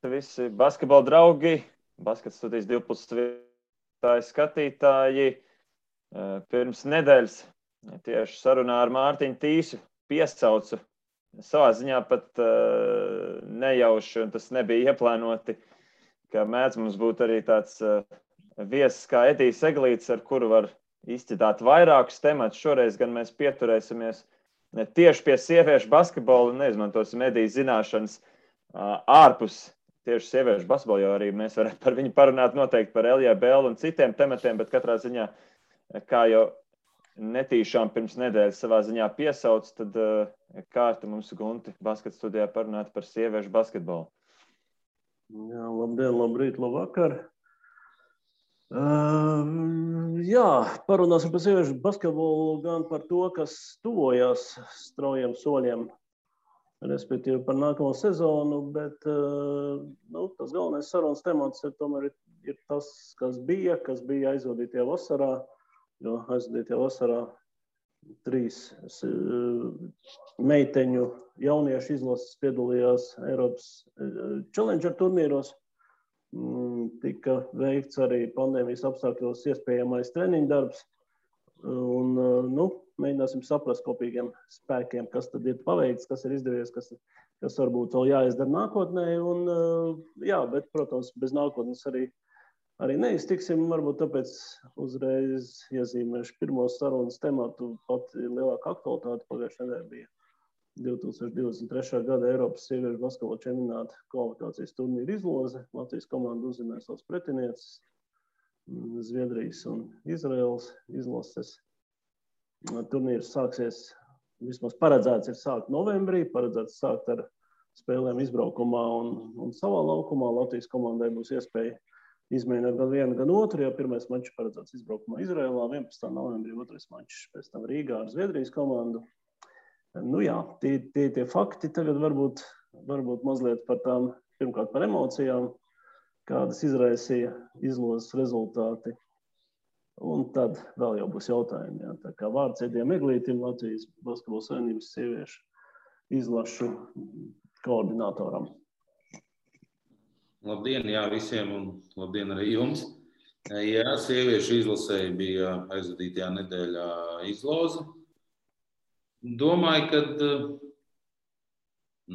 visi basketbola draugi, Baskets studijas 2+ skatītāji. Pirms nedēļas tieši sarunā ar Mārtiņu Tīsu piesaucu savā ziņā pat nejauši, un tas nebija ieplānoti, ka mēdz mums būt arī tāds viesis kā Edijs Eglīts, ar kuru var izķitāt vairākus tematus. Šoreiz gan mēs pieturēsimies tieši pie sieviešu basketbola un neizmantosim Edijas zināšanas ārpus tieši sieviešu basketbola, jo arī mēs varētu par viņu parunāt noteikti par LJBL un citiem tematiem, bet katrā ziņā, kā jau netīšām pirms nedēļas savā ziņā piesauc, tad kārta mums Gunti Baskets studijā parunāt par sieviešu basketbolu. Jā, labdien, labrīt, labvakar. Jā, parunāsim par sieviešu basketbolu gan par to, kas tuvojās straujiem soļiem, respektīvi par nākamo sezonu, bet tas galvenais sarunas temats tomēr ir tas, kas bija aizvadītajā vasarā, jo aizvadītajā vasarā 3 meiteņu jauniešu izlases piedalījās Eiropas Challenger turnīros. Tika veikts arī pandēmijas apstākļos iespējamais treniņu darbs. Un, mēģināsim saprast kopīgiem spēkiem, kas tad ir paveikts, kas ir izdevies, kas varbūt vēl jāizdara nākotnē. Un, bet, protams, bez nākotnes arī neiztiksim. Varbūt tāpēc uzreiz iezīmēšu pirmo sarunas tematu. Pat lielāka aktualitāte pagājušajā nedēļā bija 2023. gada Eiropas sieviešu basketbola čempionāta kvalifikācijas turnīra izloze. Latvijas komanda uzzinās savus pretinieces, Zviedrijas un Izraēlas izlases. Turnīrs sāksies, vismaz paredzēts ir sākt novembrī, paredzēts sākt ar spēlēm izbraukumā un savā laukumā. Latvijas komandai būs iespēja izmēģināt gan vienu, gan otru, jo pirmais mačs paredzēts izbraukumā Izraēlā, 11. novembrī, otrais mačs pēc tam Rīgā ar Zviedrijas komandu. Tie fakti tagad varbūt mazliet par tām, pirmkārt par emocijām, kādas izraisīja izlozes rezultāti. Un tad vēl jau būs jautājumi. Jā. Tā kā vārds Edijam Eglītim, Latvijas Basketbola Savienības sieviešu izlašu koordinatoram. Labdien, visiem un labdien arī jums. Jā, sieviešu izlasēji bija aizvadītajā nedēļā izloze. Domāju, ka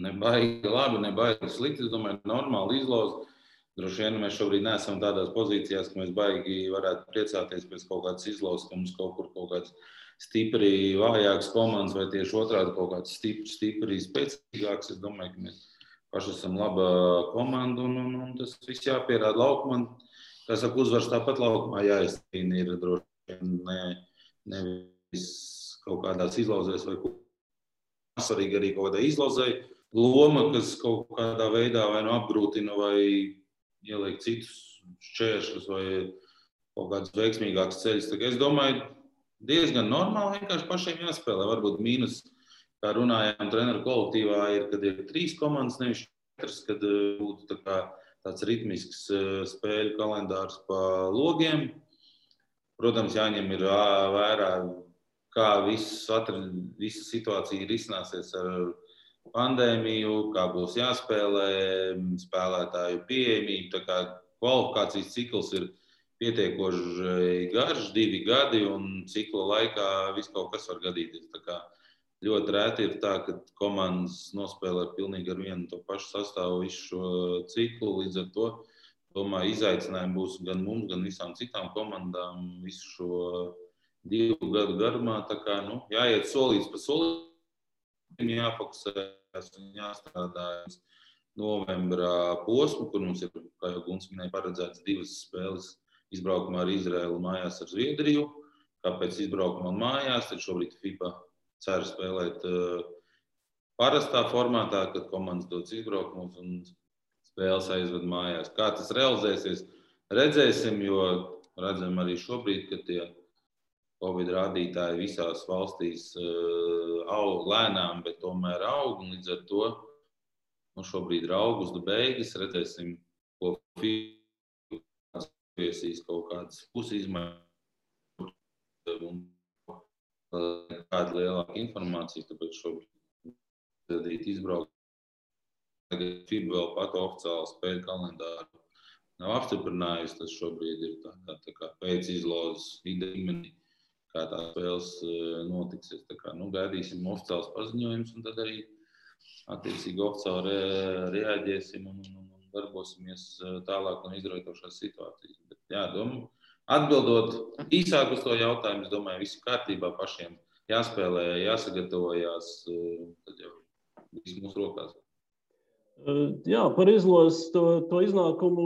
nebaigi labi, nebaigi slikti. Es domāju, normāli izloze. Droši vien mēs šobrīd neesam tādās pozīcijās, ka mēs baigi varētu priecāties pēc kaut kādas izlozes, ka mums kaut kāds stipri vājāks komandas vai tieši otrādi kaut kāds stipri spēcīgāks. Es domāju, ka mēs paši esam laba komanda un tas viss jāpierāda laukumā. Kā saka, uzvars tāpat laukumā jāizcīna ir droši vien nevis kaut kādās izlozēs vai svarīgi arī kaut kādā izlozē loma, kas kaut kādā veidā vai apgrūtina vai ieliek citus šķēršļus vai kaut kāds veiksmīgāks ceļš. Es domāju, diezgan normāli vienkārši pašiem jāspēlē. Varbūt mīnus, kā runājām treneru kolektīvā, ir, kad ir 3 komandas, nevis 4, kad būtu tāds ritmisks spēļu kalendārs pa logiem. Protams, jāņem ir vērā, kā visa situācija risināsies ar pandēmiju, kā būs jāspēlē, spēlētāju pieejamība. Tā kā kvalifikācijas cikls ir pietiekoši garš, 2 gadi, un cikla laikā viss kaut kas var gadīties. Tā kā ļoti rēti ir tā, ka komandas nospēlē pilnīgi ar vienu to pašu sastāvu visu šo ciklu. Līdz ar to, domāju, izaicinājumi būs gan mums, gan visām citām komandām visu šo 2 gadu garumā. Tā kā, jāiet solīts pa solītim, jāfokusēs un jāstrādā novembra posmu, kur mums ir, kā jau Guns minēja, paredzēts 2 spēles izbraukumā ar Izraēlu un mājās ar Zviedriju. Kāpēc izbraukumā un mājās? Tad šobrīd FIFA cer spēlēt parastā formātā, kad komandas dodas izbraukumus un spēles aizved mājās. Kā tas realizēsies, redzēsim, jo redzam arī šobrīd, ka tie Covid rādītāji visās valstīs aug lēnām, bet tomēr aug, un līdz ar to šobrīd ir augusta beigas, redzēsim, ko FIFA viesīs kaut kādas pusizmaiņas un kāda lielāka informācija, tāpēc šobrīd izbraukt FIBA vēl pat oficiāli spēļu kalendāru nav apstiprinājusi. Tas šobrīd ir tā kā pēc izlozes līmenī, kā tās spēles notiksies. Tā kā, gaidīsim oficiāls paziņojums un tad arī attiecīgi oficiāli reaģēsim un darbosimies tālāk no izraujošās situācijas. Bet, jā, atbildot īsāk uz to jautājumu, es domāju, visu kārtībā pašiem jāspēlē, jāsagatavojās, tad jau viss mūsu rokās. Jā, par izlozes to iznākumu,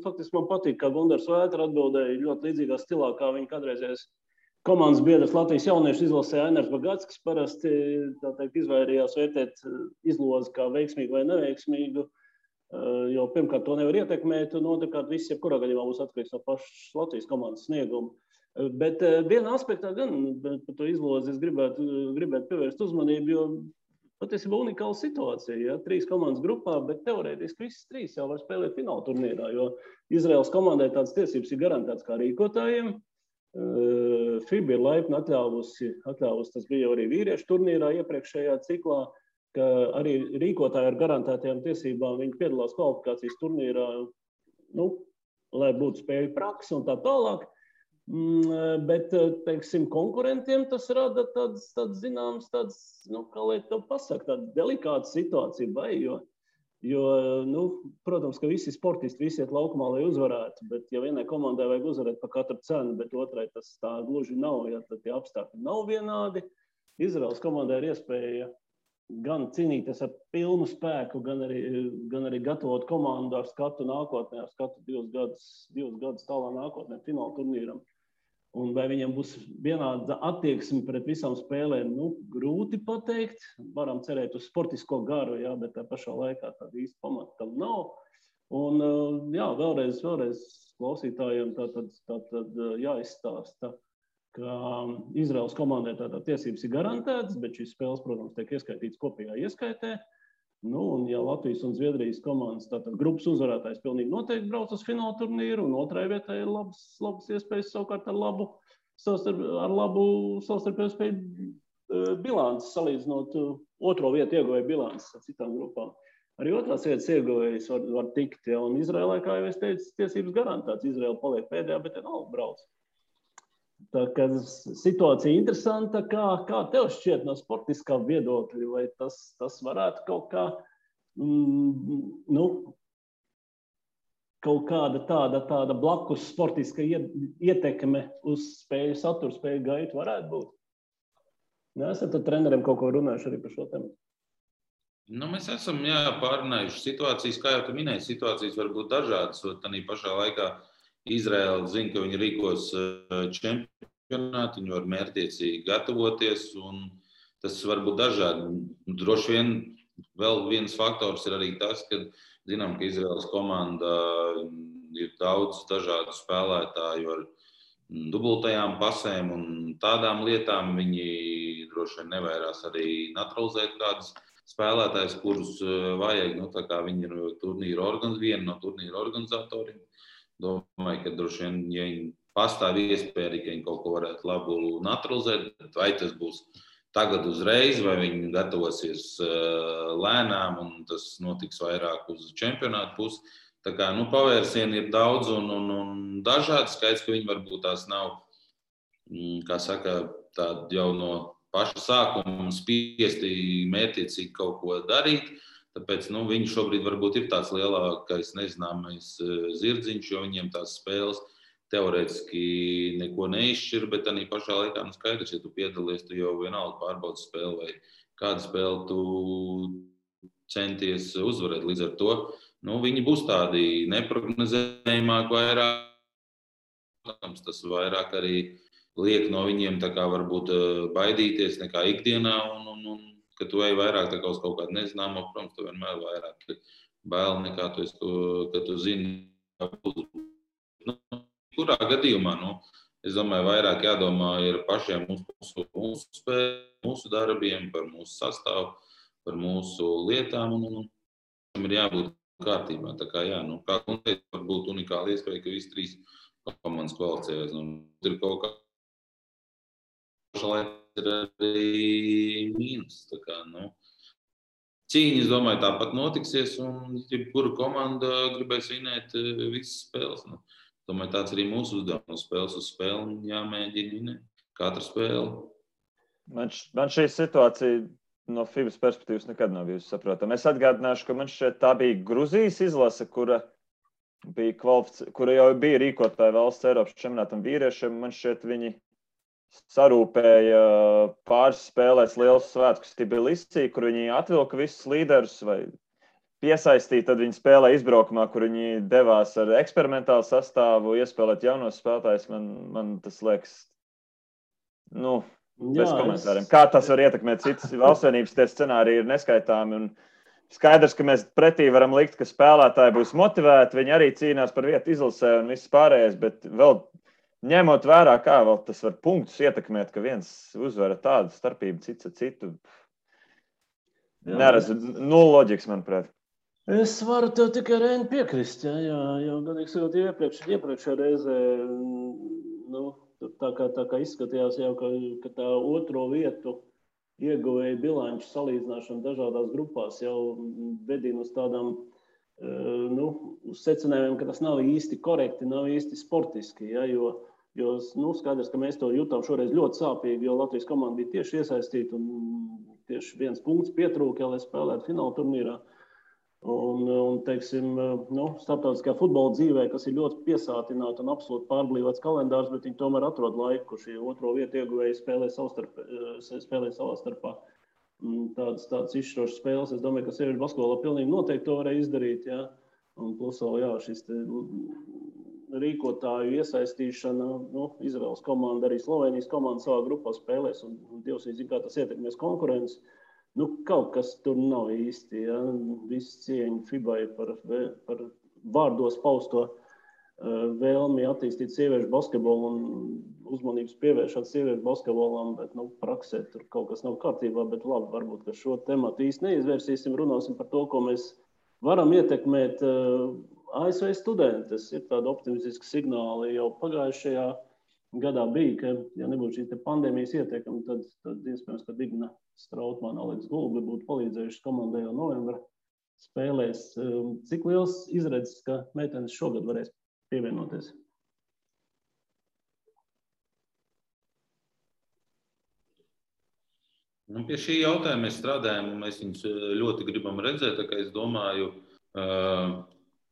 faktiski man patīk, kā Gundars Vētra atbildēja ļoti līdzīgā stilā, kā viņa kādreizējais komandas biedrs Latvijas jauniešu izlasē Ainars Bagats, parasti izvairījās vērtēt izlozi kā veiksmīgu vai neveiksmīgu, jo pirmkārt to nevar ietekmēt, un otrkārt viss jebkurā gadījumā būs atkarīgs no pašas Latvijas komandas snieguma. Bet vienā aspektā gan par to izlozi es gribētu pievērst uzmanību, jo patiesībā unikāla situācija, ja? 3 komandas grupā, bet teorētiski visas 3 jau var spēlēt fināla turnīrā, jo Izraēlas komandai tādas tiesības ir garantētas kā rīkotājiem. FIBA ir laipni atļāvusi, tas bija arī vīriešu turnīrā iepriekšējā ciklā, ka arī rīkotāji ar garantētajām tiesībām viņi piedalās kvalifikācijas turnīrā, lai būtu spēļu praksa un tā tālāk. Bet, teiksim, konkurentiem tas rada tāds zināms, kā lai to pasaka, tāda delikāta situācija, jo, protams, ka visi sportisti, visi iet laukumā, lai uzvarētu, bet ja vienai komandai vajag uzvarēt par katru cenu, bet otrai tas tā gluži nav, ja tad tie apstākļi nav vienādi. Izraēlas komandai ir iespēja gan cīnīties ar pilnu spēku, gan arī gatavot komandu ar skatu nākotnē, ar skatu 2 gadus tālā nākotnē fināla turnīram. Un vai viņiem būs vienāda attieksme pret visām spēlēm, grūti pateikt. Varam cerēt uz sportisko garu, jā, bet tā pašā laikā tāda īsta pamata tam nav. Un jā, vēlreiz klausītājiem tātad jāizstāsta, ka Izraēlas komandai tātad tiesības ir garantētas, bet šīs spēles, protams, tiek ieskaitītas kopējā ieskaitē. Un ja Latvijas un Zviedrijas komandas tātad grupas uzvarētājs pilnīgi noteikti brauc uz fināla turnīru, un otrai vietai ir labas iespējas savukārt ar labu savstarpēju spēju bilances, salīdzinot otro vietu ieguvēju bilances ar citām grupām. Arī otrās vietas ieguvējs var tikt, ja, un Izraēlai, kā jau es teicu, tiesības garantētas. Izraēla paliek pēdējā, bet nav brauc. Tā kā situācija interesanta, kā tev šķiet no sportiskā viedokļa, vai tas varētu kaut kā, kaut kāda tāda blakus sportiska ietekme uz spēju saturu, spēju gaitu varētu būt? Esat ar treneriem kaut ko runājuši arī par šo tēmu? Mēs esam pārunājuši situācijas, kā jau tu minēji, situācijas var būt dažādas, un tādā pašā laikā Izraēla zina, ka viņi rīkos čempionātu, viņi var mērķtiecīgi gatavoties, un tas var būt dažādi. Droši vien vēl viens faktors ir arī tas, ka zinām, ka Izraēlas komanda ir daudz dažādu spēlētāju ar dubultajām pasēm un tādām lietām. Viņi droši vien nevairās arī naturalizēt kādus spēlētājus, kurus vajag. Tā kā viņi ir viena no turnīra organizatoriem. Domāju, ka droši vien, ja viņi pastāv iespēja, ka viņi kaut ko varētu labu naturalizēt, vai tas būs tagad uzreiz, vai viņi gatavosies lēnām, un tas notiks vairāk uz čempionātu pusi. Tā kā pavērsieni ir daudz un dažādi. Skaidrs, ka viņi varbūt tās nav, kā saka, tādi jau no paša sākuma spiesti mērķiecīgi kaut ko darīt. Tāpēc viņi šobrīd varbūt ir tāds lielākais nezināmais zirdziņš, jo viņiem tās spēles teorētiski neko neizšķir, bet arī pašā laikā skaidrs, ja tu piedalies, tu jau vienalga pārbaudi spēli vai kādu spēli tu centies uzvarēt. Līdz ar to viņi būs tādi neprognozējumāki vairāk. Tas vairāk arī liek no viņiem tā kā varbūt baidīties nekā ikdienā un ka tu ej vairāk tā kā uz kaut kādu nezināmo, protams, tu vienmēr vairāk bail nekā ka tu zini. Kurā gadījumā, es domāju, vairāk jādomā ir pašiem mūsu spēlēm, mūsu darbiem, par mūsu sastāvu, par mūsu lietām, un tam ir jābūt kārtībā. Tā kā kā konkrēti var būt unikāla iespēja, ka visi 3 komandas kvalificējas. Ir kaut kā pašlaik ir arī mīnus. Tā kā, cīņa, es domāju, tāpat notiksies, un jebkura komanda gribēs vinēt visas spēles. Nu, domāju, tāds arī mūsu uzdevums. Spēles uz spēli jāmēģina vinēt. Katra spēle. Man šī situācija no FIBAS perspektīvas nekad nav bijusi saprotama. Es atgādināšu, ka man šķiet tā bija Gruzijas izlase, kura jau bija rīkotāja valsts Eiropas čempionātam vīriešiem. Man šķiet, viņi sarūpēja pāris spēlēs liels svētkus Tbilisī, kur viņi atvilka visus līderus vai piesaistīja. Tad viņi spēlēja izbraukumā, kur viņi devās ar eksperimentālu sastāvu, iespēlēt jaunos spēlētājus. Man tas liekas, bez komentāriem. Kā tas var ietekmēt citas valstsvienības, tie scenāriji ir neskaitāmi. Un skaidrs, ka mēs pretī varam likt, ka spēlētāji būs motivēti, viņi arī cīnās par vietu izlasē un viss pārējais, bet vēl ņemot vērā, kā vēl tas var punktus ietekmēt, ka viens uzvara tādu starpību cits ar citu. Neredzu, loģikas, manuprāt. Es varu tev tikai Reini piekrist, jo godīgi sakot, iepriekšējā reizē, tā kā izskatījās jau, ka tā otro vietu ieguvēja bilanču salīdzināšana dažādās grupās jau vedina uz tādām uz secinājumiem, ka tas nav īsti korekti, nav īsti sportiski, jo skaidrs, ka mēs to jutām šoreiz ļoti sāpīgi, jo Latvijas komanda bija tieši iesaistīta un tieši 1 punkts pietrūka, lai spēlētu fināla turnīrā. Un teiksim, starptautiskajā futbola dzīvē, kas ir ļoti piesātināta un absolūti pārblīvots kalendārs, bet viņi tomēr atrod laiku, kur šī otro vietu ieguvēji spēlē savā starpā. Tādas izšķirošas spēles, es domāju, ka sieviešu basketbolā pilnīgi noteikti to varēja izdarīt, Un plus vēl, šis rīkotāju iesaistīšana, Izraels komanda, arī Slovenijas komanda savā grupā spēlēs, un Dievs zina, kā tas ietekmēs konkurences. Kaut kas tur nav īsti, Viss cieņa FIBAI par vārdos pausto vēlmi attīstīt sieviešu basketbolu un uzmanības pievēršot sieviešu basketbolam, bet praksē tur kaut kas nav kārtībā, bet labi, varbūt, ka šo tematu īsti neizvērsīsim, runāsim par to, ko mēs varam ietekmēt ASV studentus. Ir tādi optimistiski signāli jau pagājušajā gadā bija, ka, ja nebūtu šī pandēmijas ietekme, tad iespējams, ka Digna Strautmana, Aleks Gulbi būtu palīdzējuši komandai jau novembra spēlēs. Cik liels izredzes, ka meitenes šogad varēs pievienoties? Pie šī jautājuma mēs strādājam, un mēs viņus ļoti gribam redzēt, tā kā es domāju,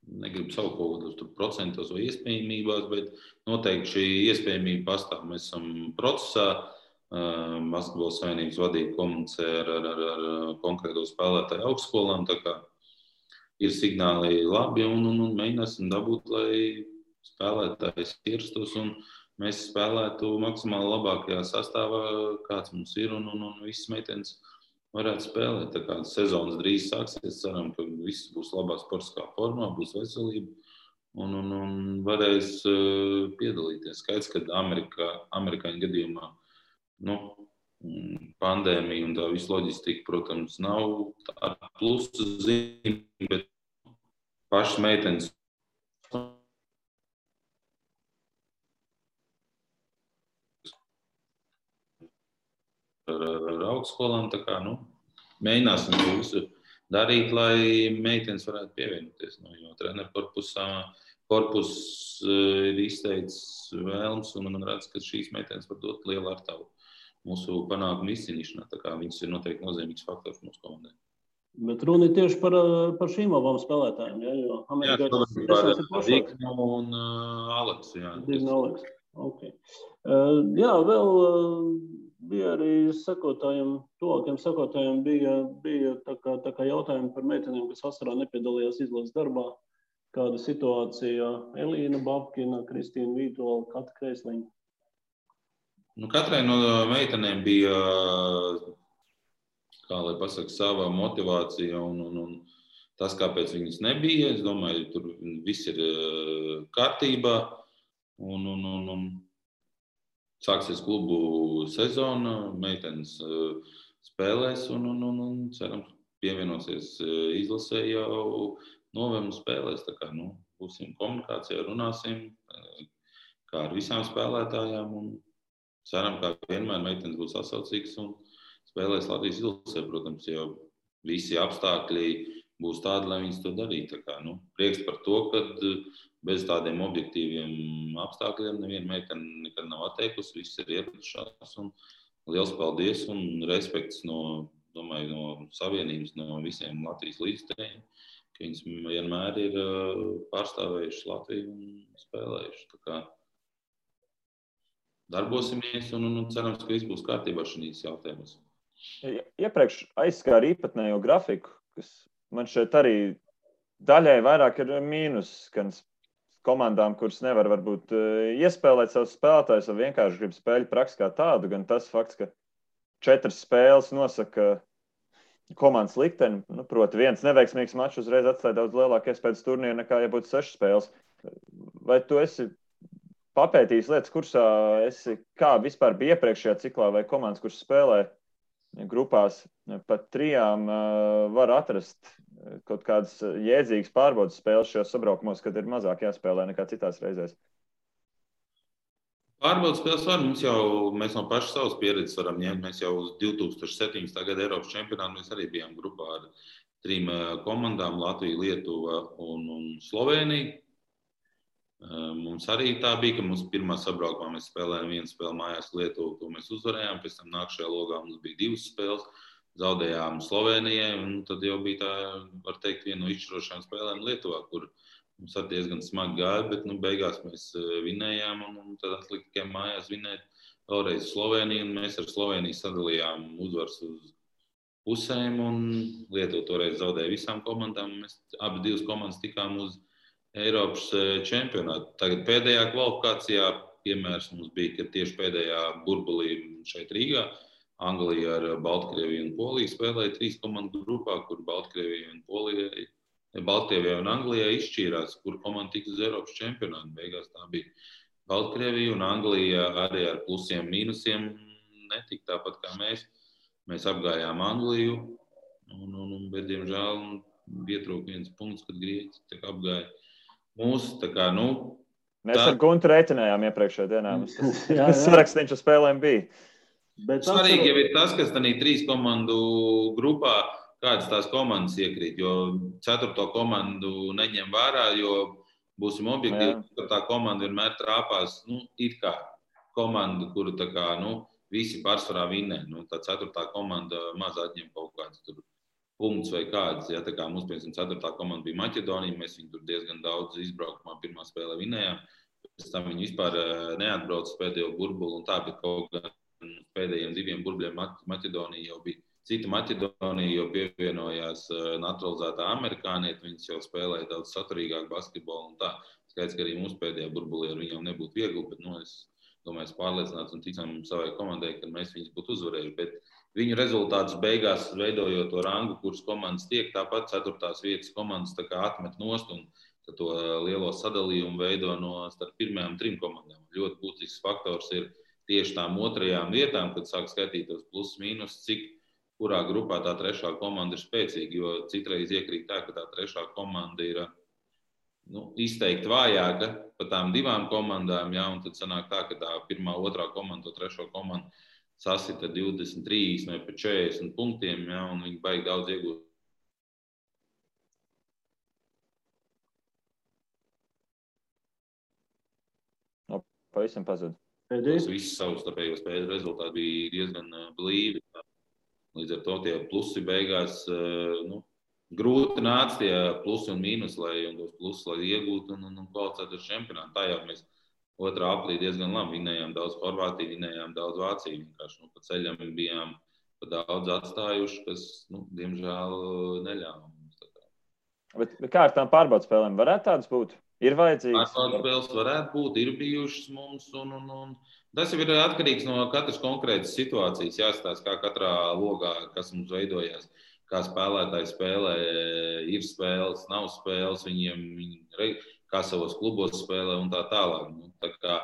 negribu saukt kaut kādos procentos vai iespējamībās, bet noteikti šī iespējamība pastāv. Mēs esam procesā, Basketbola savienības vadība komunicē ar konkrēto spēlētāju augstskolām, tā kā ir signāli labi un mēģināsim dabūt, lai spēlētājs ierastos un mēs spēlētu maksimāli labākajā sastāvā, kāds mums ir, un visas meitenes varētu spēlēt. Tā kā sezonas drīz sāksies, ceram, ka viss būs labā sportiskā formā, būs veselība un varēs piedalīties. Skaidrs, ka amerikāņu gadījumā pandēmija un tā visa loģistika, protams, nav tā plusa zīme, bet pašas meitenes ar augstskolām, tā kā, mēģināsim to visu darīt, lai meitenes varētu pievienoties, jo treneru korpus ir izteicis vēlms, un man redz, ka šīs meitenes var dot lielu artavu mūsu panākumu izcīnīšanā, tā kā viņas ir noteikti nozīmīgs faktors mūsu komandai. Bet runa ir tieši par šīm abām spēlētājiem, jo amerikāņus ir Digna un Aleks. Digna Aleks, ok. Vēl bija arī tuvākiem sekotājiem bija tā kā jautājumi par meitenēm, kas vasarā nepiedalījās izlases darbā. Kāda situācija? Elīna Babkina, Kristīna Vītola, Kata Kreisliņa. Katrai no meitenēm bija, kā lai pasaka, sava motivācija un tas, kāpēc viņas nebija. Es domāju, tur viss ir kārtībā un sāksies klubu sezona, meitenes spēlēs un cerams pievienosies izlasē jau novembra spēlēs. Tā kā, būsim komunikācijā, runāsim kā ar visām spēlētājām un ceram, kā vienmēr meitenes būs sasaucīgas un spēlēs Latvijas izlasē, protams, jau visi apstākļi būs tādi, lai viņas to darītu. Prieks par to, ka bez tādiem objektīviem apstākļiem neviena meitene nekad nav atteikusi, viss ir ieradušās. Liels paldies un respekts no savienības, no visiem Latvijas līdzstrējiem, ka viņas vienmēr ir pārstāvējušas Latviju un spēlējušas. Darbosimies un cerams, ka viss būs kārtībā šīs jautājumus. Iepriekš aizskāra īpatnējo grafiku, kas man šeit arī daļai vairāk ir mīnus, gan komandām, kuras nevar varbūt iespēlēt savus spēlētājus, vai vienkārši grib spēļu praksi kā tādu, gan tas fakts, ka 4 spēles nosaka komandas likteni, proti viens neveiksmīgs mačs uzreiz atstāja daudz lielāku iespējas turnīru nekā, ja būtu 6 spēles. Vai tu esi papētījis lietas kursā, kā vispār bija iepriekšējā ciklā, vai komandas, kuras spēlē grupās pat 3 var atrast kaut kādas jēdzīgas pārbaudas spēles šajos sabraukumos, kad ir mazāk jāspēlē nekā citās reizēs? Pārbaudas spēles var, mēs no pašas savas pieredzes varam ņemt. Mēs jau uz 2017. gada Eiropas čempionātu mēs arī bijām grupā ar 3 komandām, Latviju, Lietuva un Slovēniju. Mums arī tā bija, ka mums pirmā sabraukumā mēs spēlējām 1 spēli mājās Lietuvu, to mēs uzvarējām, pēc tam nākšajā logā mums bija 2 spēles, zaudējām Slovēnijai, un tad jau bija tā, var teikt, viena no izšķirošajām spēlēm Lietuvā, kur mums arī diezgan smagi gāja, bet beigās mēs vinējām, un tad atlika tikai mājās vinēt vēlreiz Slovēniju, un mēs ar Slovēniju sadalījām uzvaras uz pusēm, un Lietuva toreiz zaudēja visām komandām, un mēs abi 2 komandas tikām uz Eiropas čempionātu. Tagad pēdējā kvalifikācijā piemērs mums bija, ka tieši pēdējā burbulī šeit Rīgā Anglija ar Baltkrieviju un Poliju spēlēja 3 komandu grupā, kur Baltkrievijai un Anglijai izšķīrās, kur komanda tiks uz Eiropas čempionātu. Beigās tā bija Baltkrievija un Anglija arī ar plusiem, mīnusiem netika tāpat kā mēs. Mēs apgājām Angliju, bet diemžēl pietrūka 1 punkts, kad Grieķi apgāja. Mēs ar Guntu reiķinājām iepriekšējā dienā. Tas sarakstīns uz spēlēm bija. Svarīgi jau ir tas, kas tādā 3 komandu grupā, kādas tās komandas iekrīt, jo 4. komandu neņem vērā, jo būsim objektīvi, ka tā komanda vienmēr trāpās, it kā komanda, kuru visi pārsvarā vinnē. Tā 4. komanda maz atņem kaut kāds tur punkts vai kāds. Ja, tā kā mums, piemēram, 4. komanda bija Maķedonija, mēs viņu tur diezgan daudz izbraukumā pirmā spēlē vinējām. Pēc tam viņi vispār neatbrauca pēdējo burbuli un tā, bet kaut gan pēdējiem 2 burbuļiem Maķedonija jau bija cita Maķedonija, jo pievienojās naturalizētā amerikānieti, viņas jau spēlēja daudz saturīgāk basketbolu un tā. Skaidrs, ka arī mūsu pēdējā burbulī ar viņiem nebūtu viegli, bet es domāju, pārliecināts un ticam savai komandai, ka mēs viņus būtu uzvarējuši. Bet viņu rezultātus beigās, veidojot to rangu, kuras komandas tiek, tāpat 4. vietas komandas atmet nost un to lielo sadalījumu veido starp pirmajām 3 komandām. Ļoti būtisks faktors ir tieši tām 2. vietām, kad sāk skaitītos plus mīnus, kurā grupā tā 3. komanda ir spēcīga, jo citreiz iekrīt tā, ka tā 3. komanda ir izteikti vājāka par tām 2 komandām, un tad sanāk tā, ka tā 1., 2. komanda, to 3. komandu sasita 23 vai pat 40 punktiem, un viņi baigi daudz iegūt. Pavisam pazud. Visi savstarpējo spēļu rezultāti bija diezgan blīvi. Līdz ar to tie plusi beigās, grūti nāca tie plusi un mīnus, un tos plusus, lai iegūtu un kvalificētu uz čempionātu. Tā jau mēs 2. aprīlī diezgan labi vinējām daudz Horvātiju, vinējām daudz Vāciju. Vienkārši pa ceļam bijām pa daudz atstājuši, kas, diemžēl, neļāva mums. Bet kā ar tām pārbaudas spēlēm? Varētu tādas būt? Ir vajadzīgas? Pārbaudas spēles varētu būt, ir bijušas mums. Tas jau ir atkarīgs no katras konkrētas situācijas. Jāstāsta, kā katrā logā, kas mums veidojās, kā spēlētāji spēlē, ir spēles, nav spēles, viņi kā savos klubos spēlē un tā tālāk. Tā kā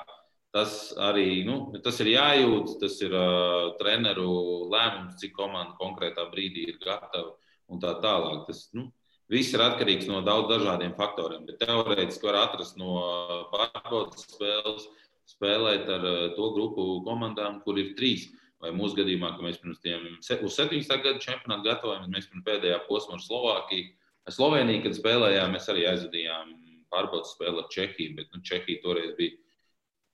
tas arī tas ir jājūt, tas ir treneru lēmums, cik komanda konkrētā brīdī ir gatava un tā tālāk. Tas viss ir atkarīgs no daudz dažādiem faktoriem, bet teorētiski var atrast no pārbaudas spēles, spēlēt ar to grupu komandām, kur ir 3. vai mūsu gadījumā, ka mēs pirms tiem uz 17. gadu čempionātu gatavojamies, mēs pirms pēdējā posma ar Slovākiju. Ar Sloveniju, kad spēlējām, mēs arī aizvadījām pārbaudas spēli ar Čehiju, bet Čehija toreiz bija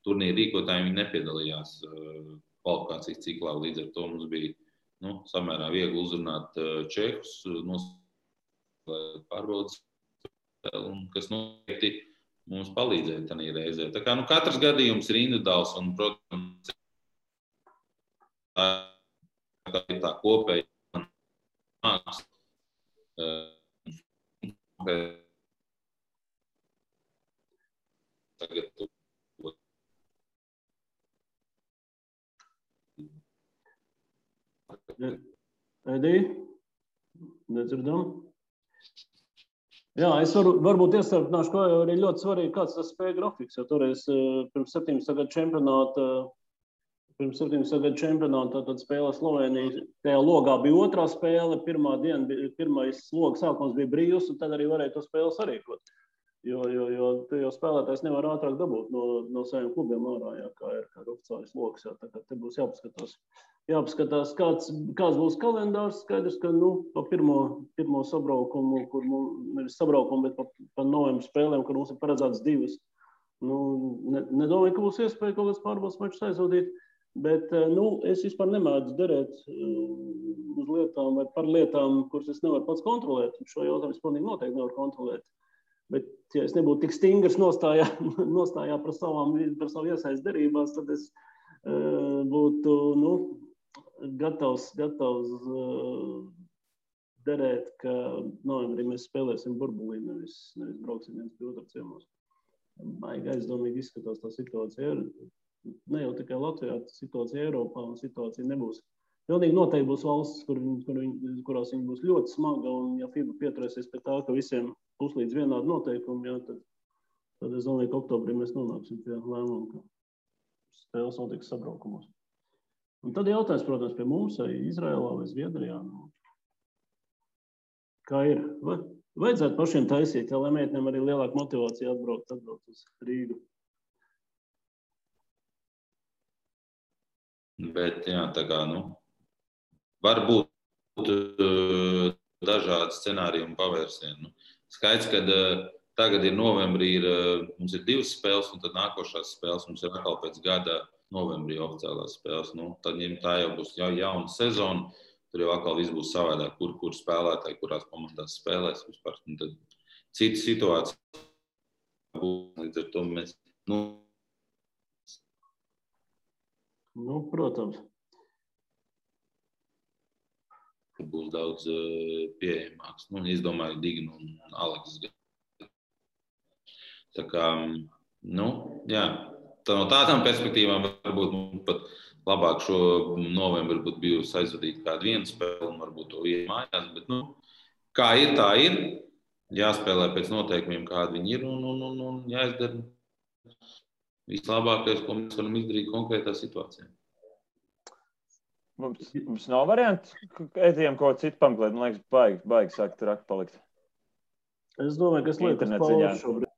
turnīra rīkotāji, viņi nepiedalījās kvalifikācijas ciklā, līdz ar to mums bija samērā viegli uzrunāt čehus, nospēlēt pārbaudas spēli, kas noteikti mums palīdzēja tajā reizē. Tā kā katrs gadījums ir individuāls un, protams, tā kopēja māksla. Edī, nedzirdam. Jā, es varbūt iestarpināšu, ka arī ļoti svarīgi, kāds tas spēja grafiks, jo toreiz pirms 17. gadu čempionāta tad spēlē Slovenija. Tajā logā bija otrā spēle, pirmais loga sākums bija brīvs, un tad arī varēja to spēli sarīkot. Jo spēlētājs nevar ātrāk dabūt no saviem klubiem ārā, jā, kā ir oficiālais logs. Jā, tā kā te būs jāpaskatās, kāds būs kalendārs. Skaidrs, ka pa pirmo sabraukumu, kur nevis sabraukumu, bet pa novembra spēlēm, kur mums ir paredzēts 2. Nedomāju, ka būs iespēja kaut kāds pārbaudas mačus aizvadīt, bet es vispār nemēdzu derēt uz lietām vai par lietām, kuras es nevaru pats kontrolēt. Šo jautājumu es pilnīgi noteikti nevaru kontrolēt. Bet, ja es nebūtu tik stingrs nostājā par savu iesaist derībās, tad es būtu gatavs derēt, ka novembrī mēs spēlēsim burbulī, nevis brauksim viens pie otra ciemos. Baigi aizdomīgi izskatās tā situācija. Ne jau tikai Latvijā, situācija Eiropā un situācija nebūs. Pilnīgi noteikti būs valstis, kurās viņi būs ļoti smaga, un ja FIBA pieturēsies pie tā, ka visiem būs līdz vienādi noteikumi, jā, tad es domāju, ka oktobrī mēs nonāksim pie lēmuma, ka spēles notiks sabraukumos. Un tad jautājums, protams, pie mums, vai Izraēlā vai Zviedrijā. Kā ir? Vajadzētu pašiem taisīt, lai meitenēm arī lielāka motivācija atbraukt uz Rīgu. Bet, jā, tā kā, var būt dažādi scenāriji un pavērsieni. Skaidrs, ka tagad ir novembrī, mums ir 2 spēles, un tad nākošās spēles mums ir atkal pēc gada novembrī oficiālās spēles. Tad tā jau būs jauna sezona, tur jau atkal viss būs savādāk, kur spēlētāji, kurās komandās spēlēs vispār. Tad cita situācija būs, līdz ar to mēs, protams. Būs daudz pieejamāks. Es domāju, Digna un Aleks. Tā kā, jā, tā no tādām perspektīvām varbūt mums pat labāk šo novembri būtu bijusi aizvadīt kādu vienu spēli un varbūt to iet mājās, bet, kā ir, tā ir. Jāspēlē pēc noteikumiem, kādi viņi ir, un jāizdara vislabākais, ko mēs varam izdarīt konkrētā situācijā. Mums nav varianti, ejam kaut ko citu pameklēt. Man liekas, baigi sākt rakt palikt. Es domāju, ka es lieku uz pauzi šobrīd.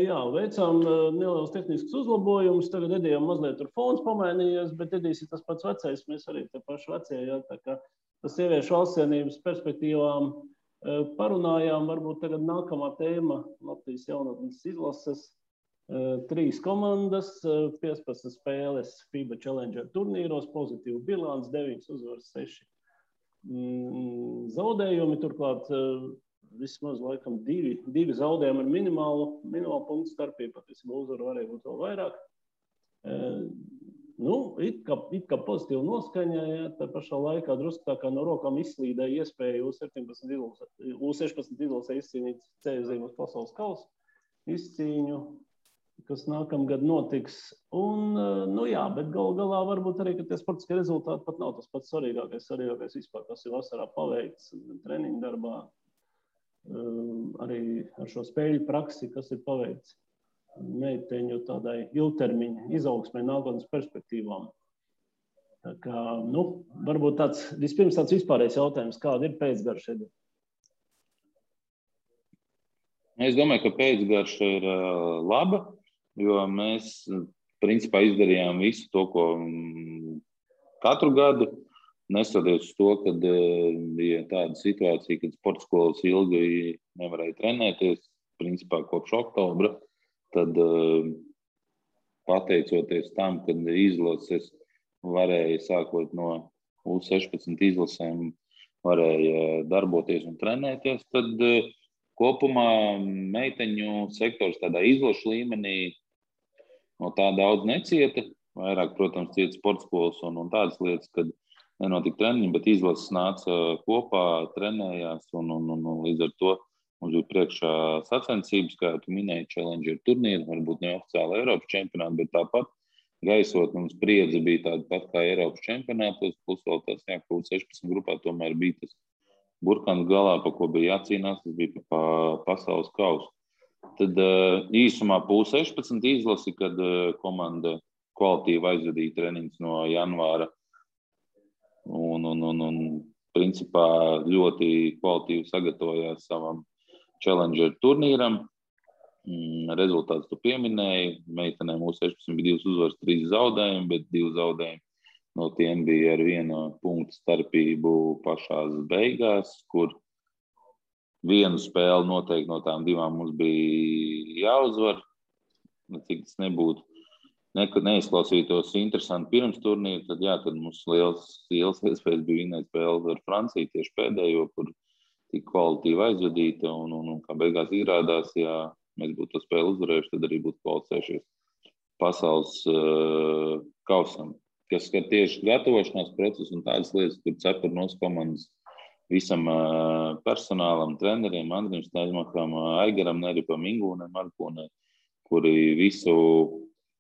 Jā, veicām nelielus tehniskus uzlabojumus. Tagad Edijam mazliet tur fons pamainījies, bet Edijs ir tas pats vecais. Mēs arī te paši vecie, jā, tā kā tas sieviešu valstsienības perspektīvām parunājām. Varbūt tagad nākamā tēma Latvijas jaunatnes izlases. 3 komandas, 15 spēles FIBA Challenger turnīros, pozitīvu bilants, 9 uzvaras, 6 zaudējumi. Turklāt vismaz laikam 2 zaudējumi ar minimālu punktu starpību, patiesībā uzvaru varēja būt vēl vairāk. It kā pozitīva noskaņa, ja, tā pašā laikā drusku tā kā no rokām izslīdēja iespēja U16 izlasē izcīnīt ceļu uz pasaules kausa izcīņu, kas nākamgad notiks. Un, jā, bet galā varbūt arī, ka tie sportiskie rezultāti pat nav tas pats svarīgākais vispār, kas ir vasarā paveikts treniņu darbā, arī ar šo spēļu praksi, kas ir paveikts meiteņu tādai ilgtermiņa izaugsmē nākotnes perspektīvām. Tā kā, varbūt vispirms tāds vispārējais jautājums, kāda ir pēcgarša? Es domāju, ka pēcgarša ir laba, jo mēs principā izdarījām visu to, ko katru gadu. Neskatoties uz to, kad bija tāda situācija, kad sporta skolas ilgi nevarēja trenēties, principā kopš oktobra, tad pateicoties tam, kad izlases varēja sākot no U16 izlasēm, varēja darboties un trenēties, tad kopumā meiteņu sektors tādā izlašu līmenī no tā daudz necieta. Vairāk, protams, cieta sporta skolas un tādas lietas, kad nenotika treniņi, bet izlases nāca kopā, trenējās un līdz ar to mums bija priekšā sacensības, kā tu minēji, Challenger turnīri, varbūt neoficiāli Eiropas čempionāti, bet tāpat gaisotne un spriedze bija tāda pat kā Eiropas čempionātos, plus vēl tas, ka U16 grupā tomēr bija tas burkans galā, pa ko bija jācīnās, tas bija pa pasaules kausu. Tad īsumā U16 izlasi, kad komanda kvalitīvi aizvadīja treniņus no janvāra un principā ļoti kvalitīvi sagatavojās savam Challenger turnīram. Rezultāts tu pieminēji. Meitenēm U16 bija 2 uzvaras, 3 zaudējumi, bet 2 zaudējumi no tiem bija ar 1 punktu starpību pašās beigās, kur vienu spēli noteikti no tām 2 mums bija jāuzvar. Cik tas nebūtu, neizklausītos interesanti pirms turnīra, tad mums liels iespējas bija vinēt spēli ar Franciju tieši pēdējo, kur tik kvalitīvi aizvadīta un kā beigās izrādās, ja mēs būtu to spēli uzvarējuši, tad arī būtu kvalificējušies pasaules kausam. Kas skar tieši gatavošanās procesu un tādas lietas, kur cepur nos komandas visam personālam, treneriem, Andrim Staļmakam, Aigaram Neripam, Ingūnam Markonē, kuri visu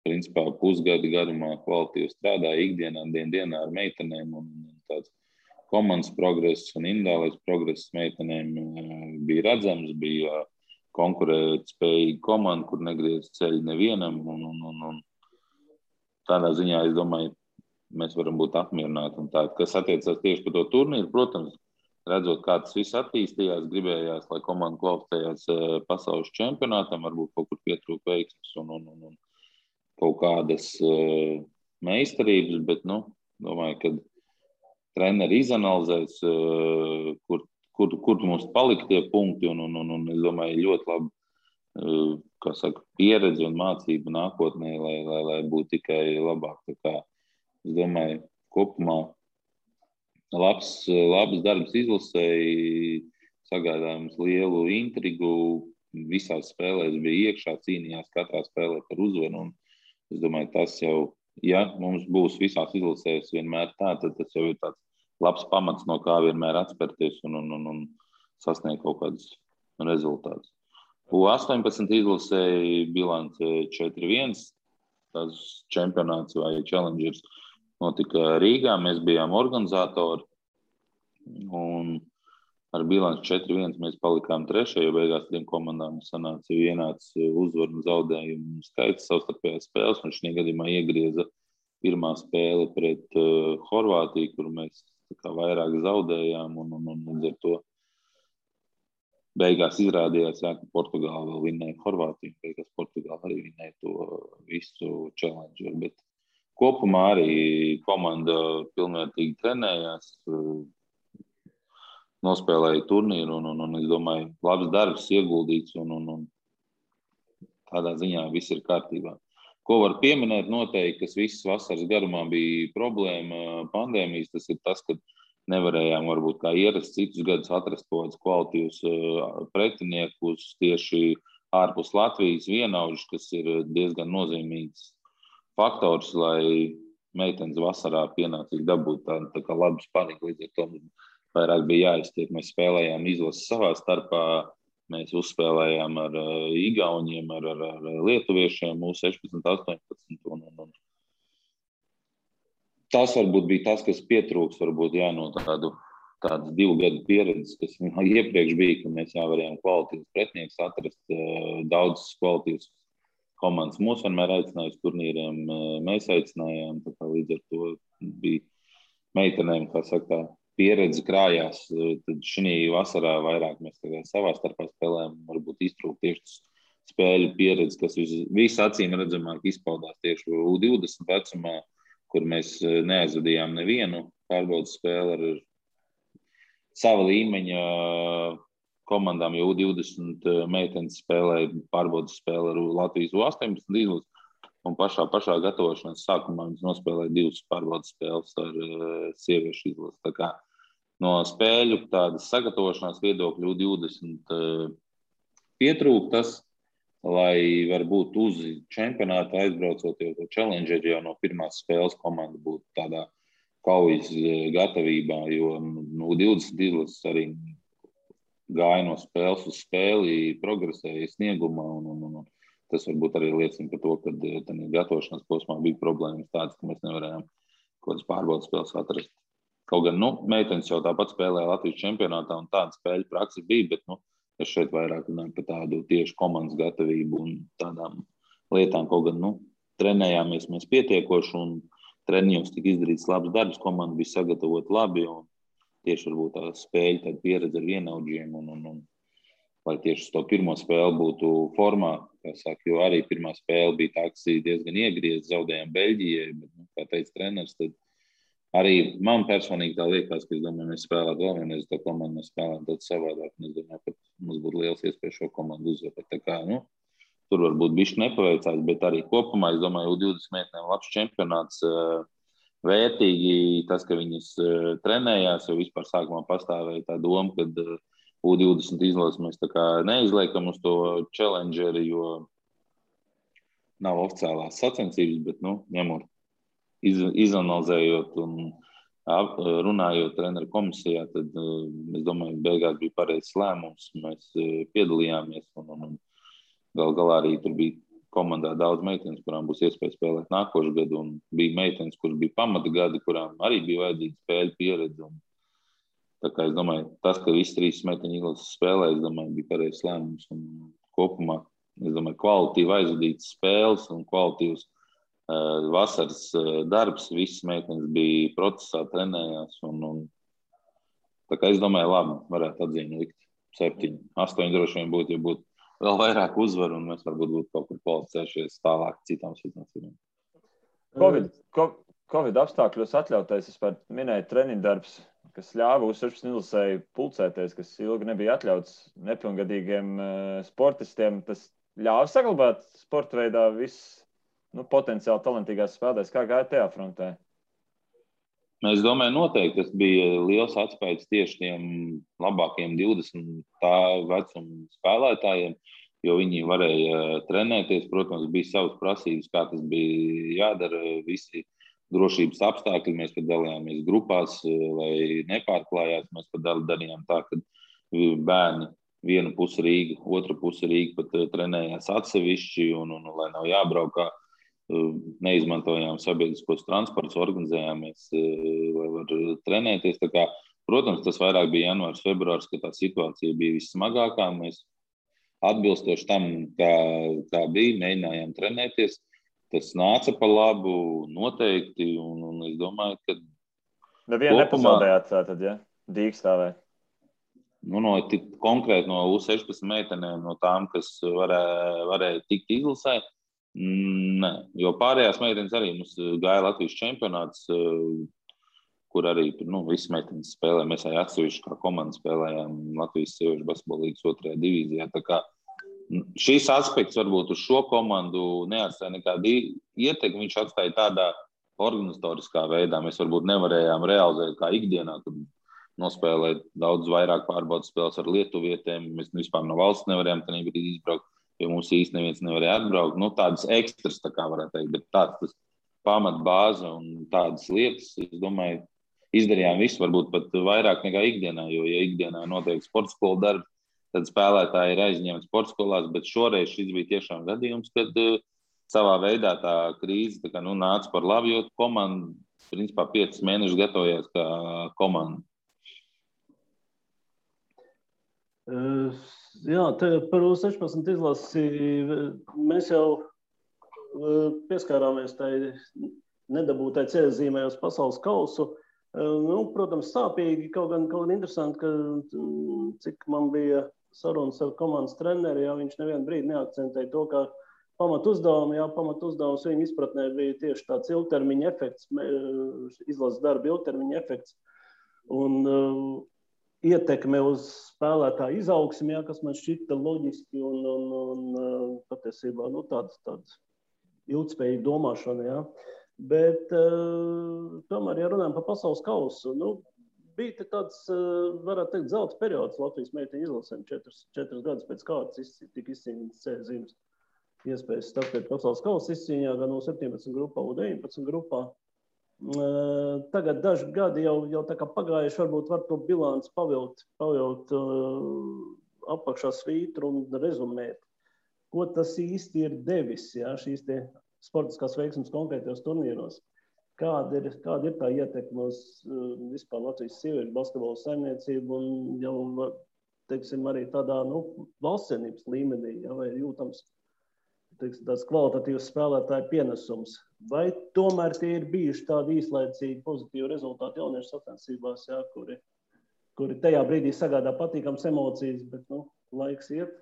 principā pusgadu garumā kvalitīvi strādāja ikdienā, dienā ar meitenēm un tāds komandas progress un individuālais progress meitenēm bija redzams, bija konkurēt spējīga komanda, kur negriez ceļu nevienam un tādā ziņā, es domāju, mēs varam būt apmierināti. Un tā, kas attiecās tieši par to turnīru, protams, redzot, kā tas viss attīstījās, gribējās, lai komanda kvalificējās pasaules čempionātam, varbūt kaut kur pietrūka veiksmes un kaut kādas meistarības, bet, domāju, ka treneri izanalizēs, kur mums palika tie punkti un es domāju, ļoti labi, pieredze un mācība nākotnē, lai būtu tikai labāk. Tā kā, es domāju, kopumā labs darbs izlasēji, sagādājums lielu intrigu, visās spēlēs bija iekšā, cīnījās katrā spēlē par uzvaru. Un es domāju, tas jau, ja mums būs visās izlasēs vienmēr tā, tad tas jau ir tāds labs pamats, no kā vienmēr atspērties un sasniegt kaut kādus rezultātus. U18 izlasēja bilance 4-1. Tas čempionāts vai challengers notika Rīgā. Mēs bijām organizatori un ar bilanci 4-1 mēs palikām 3. jo beigās 3 komandām sanāca vienāds uzvaru un zaudējumu skaits savstarpējās spēles. Un šī gadījumā iegrieza pirmā spēle pret Horvātiju, kur mēs vairāk zaudējām un līdz ar to beigās izrādījās, ka Portugāla vēl vinnēja Horvātiju. Beigās Portugāla arī vinnēja to visu challenger. Bet kopumā arī komanda pilnvērtīgi trenējās, nospēlēja turnīru un es domāju, labs darbs ieguldīts un tādā ziņā viss ir kārtībā. Ko var pieminēt noteikti, kas visas vasaras garumā bija problēma pandēmijas, tas ir tas, ka nevarējām varbūt kā ierasts citus gadus atrast kaut kādus kvalitīvus pretiniekus tieši ārpus Latvijas vienaudžus, kas ir diezgan nozīmīgs faktors, lai meitenes vasarā pienācīgi dabūtu tā kā labu spaniņu. Līdz ar to vairāk bija jāiztiek. Mēs spēlējām izlases savā starpā. Mēs uzspēlējām ar Igauņiem, ar Lietuviešiem, U16, 18. Un tas varbūt bija tas, kas pietrūks, varbūt no tādas 2 gadu pieredzes, kas iepriekš bija, ka mēs varējām kvalitīvus pretinieks atrast, daudzas kvalitīvas komandas. Mūs vienmēr aicināja uz turnīriem, mēs aicinājām, tā kā līdz ar to bija meitenēm, kā saka, pieredze krājās, tad šī vasarā vairāk mēs savā starpā spēlējām, varbūt iztrūkt tieši spēļu pieredze, kas visacīm redzamāk izpaudās tieši U20 vecumā, kur mēs neaizvadījām nevienu pārbaudas spēli ar sava līmeņa komandām, jo U20 meitenes spēlēja pārbaudas spēli ar Latvijas U18 izlasi, un pašā gatavošanās sākumā viņas nospēlēja 2 pārbaudas spēles ar sieviešu izlasi. Tā kā no spēļu tādas sagatavošanās viedokļu U20 pietrūk tas, lai varbūt uz čempionātu aizbraucot jau to challenger, jau no pirmās spēles komanda būtu tādā kaujas gatavībā, jo U20 izlases arī gāja no spēles uz spēli, progresēja sniegumā, un tas varbūt arī liecina par to, ka tādā gatavošanās posmā bija problēmas tādas, ka mēs nevarējām kaut kādas pārbaudas spēles atrast. Kaut gan, meitenes jau tāpat spēlēja Latvijas čempionātā, un tāda spēļu praksa bija, bet, es šeit vairāk runāju par tādu tieši komandas gatavību un tādām lietām, kaut gan, trenējāmies mēs pietiekoši, un treniņos tika izdarīts labs darbs, komanda bija sagatavota labi, un tieši varbūt tā spēļu, tāda pieredze ar vienaudžiem, un lai tieši uz to pirmo spēli būtu formā, kā saka, jo arī pirmā spēle bija tā, kas diezgan iegriez, zaudējām Beļģijai, bet, kā teica treneris, tad arī man personīgi tā liekas, ka es domāju, mēs spēlētu vēl vienreiz to komandu, mēs spēlētu daudz savādāk, un es domāju, ka mums būtu liels iespējas šo komandu uzvarēt. Tā kā, tur varbūt bišķi nepaveicās, bet arī kopumā, es domāju, U20 meitenēm labs čempionāts, vērtīgi tas, ka viņas trenējās, jo vispār sākumā pastāvēja tā doma, ka U20 izlases mēs tā kā neizliekam uz to challengeri, jo nav oficiālās sacensības, bet, ņemot, izanalizējot un runājot treneru komisijā, tad es domāju, beigās bija pareizs lēmums, mēs piedalījāmies, un gal galā arī tur bija komandā daudz meitenes, kurām būs iespēja spēlēt nākošu gadu, un bija meitenes, kuras bija pamata gadi, kurām arī bija vajadzīga spēļu pieredze. Tā kā es domāju, tas, ka visi 3 meiteņu izlases spēlē, es domāju, bija pareizs lēmums. Un kopumā, es domāju, kvalitatīvi aizvadītas spēles un kvalitīvs vasaras darbs, visas meitenes bija procesā, trenējās. Un tā kā es domāju, labi, varētu atzīmi likt 7, 8 droši vien būtu, ja būtu vēl vairāk uzvaru, un mēs varbūt būtu kaut kur kvalificējušies tālāk citām situācijām. Covid apstākļos atļautais, es minēju treniņu darbs, kas ļāva U16 izlasēji pulcēties, kas ilgi nebija atļauts nepilngadīgiem sportistiem. Tas ļāva saglabāt sporta veidā viss potenciāli talantīgās spēlētājs. Kā gāja tajā frontē? Es domāju, noteikti tas bija liels atspējas tieši tiem labākiem 20 tā vecuma spēlētājiem, jo viņi varēja trenēties. Protams, bija savas prasības, kā tas bija jādara, visi drošības apstākļi. Mēs pat dalījāmies grupās, lai nepārklājās. Mēs pat darījām tā, ka bērni viena puse Rīga, otra puse Rīga pat trenējās atsevišķi, un lai nav jābraukā. Neizmantojām sabiedriskos transportus, organizējāmies, lai var trenēties. Tā kā, protams, tas vairāk bija janvārs, februārs, kad tā situācija bija vissmagākā. Mēs atbilstoši tam, kā bija, mēģinājām trenēties. Tas nāca pa labu noteikti, un es domāju, ka nevienu nepazaudējāt tātad, ja? Dīkstāvē. Konkrēti no U16 meitenēm, no tām, kas varēja tikt izlasē, nē, jo pārējās meitenes arī mums gāja Latvijas čempionāts, kur arī visas meitenes spēlē. Mēs arī atsevišķi kā komanda spēlējām Latvijas sieviešu basketbola līgas 2. divīzijā. Tā kā šīs aspekts varbūt uz šo komandu neatstāja nekādu ietekmi. Viņš atstāja tādā organizatoriskā veidā. Mēs varbūt nevarējām realizēt kā ikdienā, kad nospēlēt daudz vairāk pārbaudas spēles ar lietuvietēm. Mēs vispār no valsts nevarējām tajā brīdī izbraukt, jo mums īsti neviens nevarēja atbraukt. Tādas ekstras, tā kā varētu teikt, bet tāds tas pamat bāze un tādas lietas, es domāju, izdarījām visu, varbūt pat vairāk nekā ikdienā, jo, ja ikdienā notiek sporta skolu darbi, tad spēlētāji ir aizņemti sporta skolās, bet šoreiz šis bija tiešām gadījums, kad savā veidā tā krīze nāca par labu, jo komanda, principā, 5 mēnešus gatavojās kā komanda. Jā, par U16 izlasi mēs jau pieskārāmies tai nedabūtai ceļzīmē uz pasaules kausu. Protams, sāpīgi, kaut gan interesanti, ka cik man bija sarunas ar komandas treneri, ja viņš nevienu brīdi neakcentēja to, ka pamatuzdevums viņa izpratnē bija tieši tāds ilgtermiņa efekts, izlases darba ilgtermiņa efekts un ietekme uz spēlētāju izaugsmi, ja, kas man šķita loģiski un patiesībā tāds ilgspējīga domāšana. Ja. Bet tomēr, ja runājam par pasaules kausu, bija tāds, varētu teikt, zelta periods Latvijas meiteņu izlasēm, 4 gadus pēc kārtas tika izcīnīts C zīmes iespējas startēt pasaules kausa izcīņā gan no 17 grupā, un 19 grupā. Tagad daži gadi jau tā kā pagājuši, varbūt var to bilanci pavilkt apakšā svītru un rezumēt, ko tas īsti ir devis, ja, šīs te sportiskās veiksmes konkrētajos turnīros. Kāda ir tā ietekme uz vispār Latvijas sieviešu basketbola saimniecību un jau, teiksim, arī tādā, valstsienības līmenī, ja, vai jūtams tāds kvalitatīvs spēlētāju pienesums. Vai tomēr tie ir bijuši tādi īslaicīgi pozitīvi rezultāti jauniešu sacensībās, ja, kuri tajā brīdī sagādā patīkams emocijas, bet laiks iet,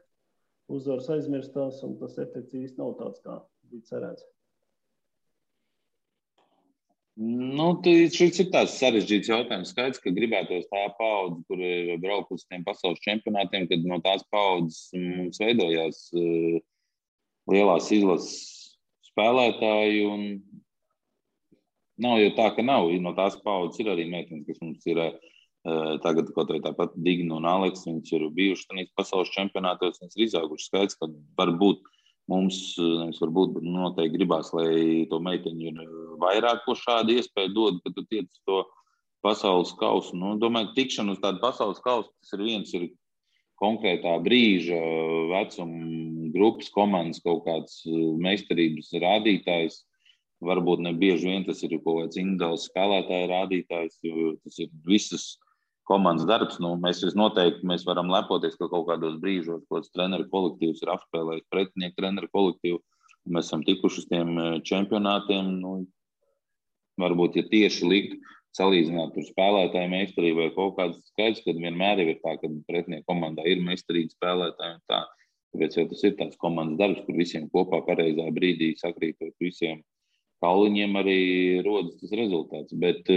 uzvaras aizmirstās un tas efekts īsti nav tāds, kā bija cerēts? Šis ir tāds sarežģīts jautājums. Skaidrs, ka gribētos tā paudze, kur braukt uz tiem pasaules čempionātiem, kad no tās paudzes mums veidojās lielās izlases spēlētāji, un nav jau tā, ka nav. No tās paudzes ir arī meitenes, kas mums ir tagad kaut vai tāpat Digna un Aleks, viņas ir bijuši tanīs pasaules čempionātos, viņas ir izauguši. Skaidrs, ka varbūt mums, noteikti gribās, lai to meiteņu ir vairāk, ko šādu iespēju dod, kad tu tiec to pasaules kausu. Domāju, tikšana uz tādu pasaules kausu, tas ir viens ir konkrētā brīža, vecuma grupas, komandas kaut kāds meistarības rādītājs. Varbūt ne bieži vien tas ir kaut kāds individuāls spēlētāja rādītājs, jo tas ir visas komandas darbs. Mēs varam lepoties, ka kaut kādos brīžos kāds treneru kolektīvs ir apspēlējis pretinieku treneru kolektīvu. Mēs esam tikuši uz tiem čempionātiem. Varbūt, ja tieši likt salīdzināt tur spēlētāju meistarību vai kaut kāds skaidrs, kad vienmēr ir tā, ka pretinieku komandā ir meistarīgi spēlētāji un tā. Tāpēc jau tas ir tāds komandas darbs, kur visiem kopā pareizā brīdī sakrītot visiem kauliņiem arī rodas tas rezultāts. Bet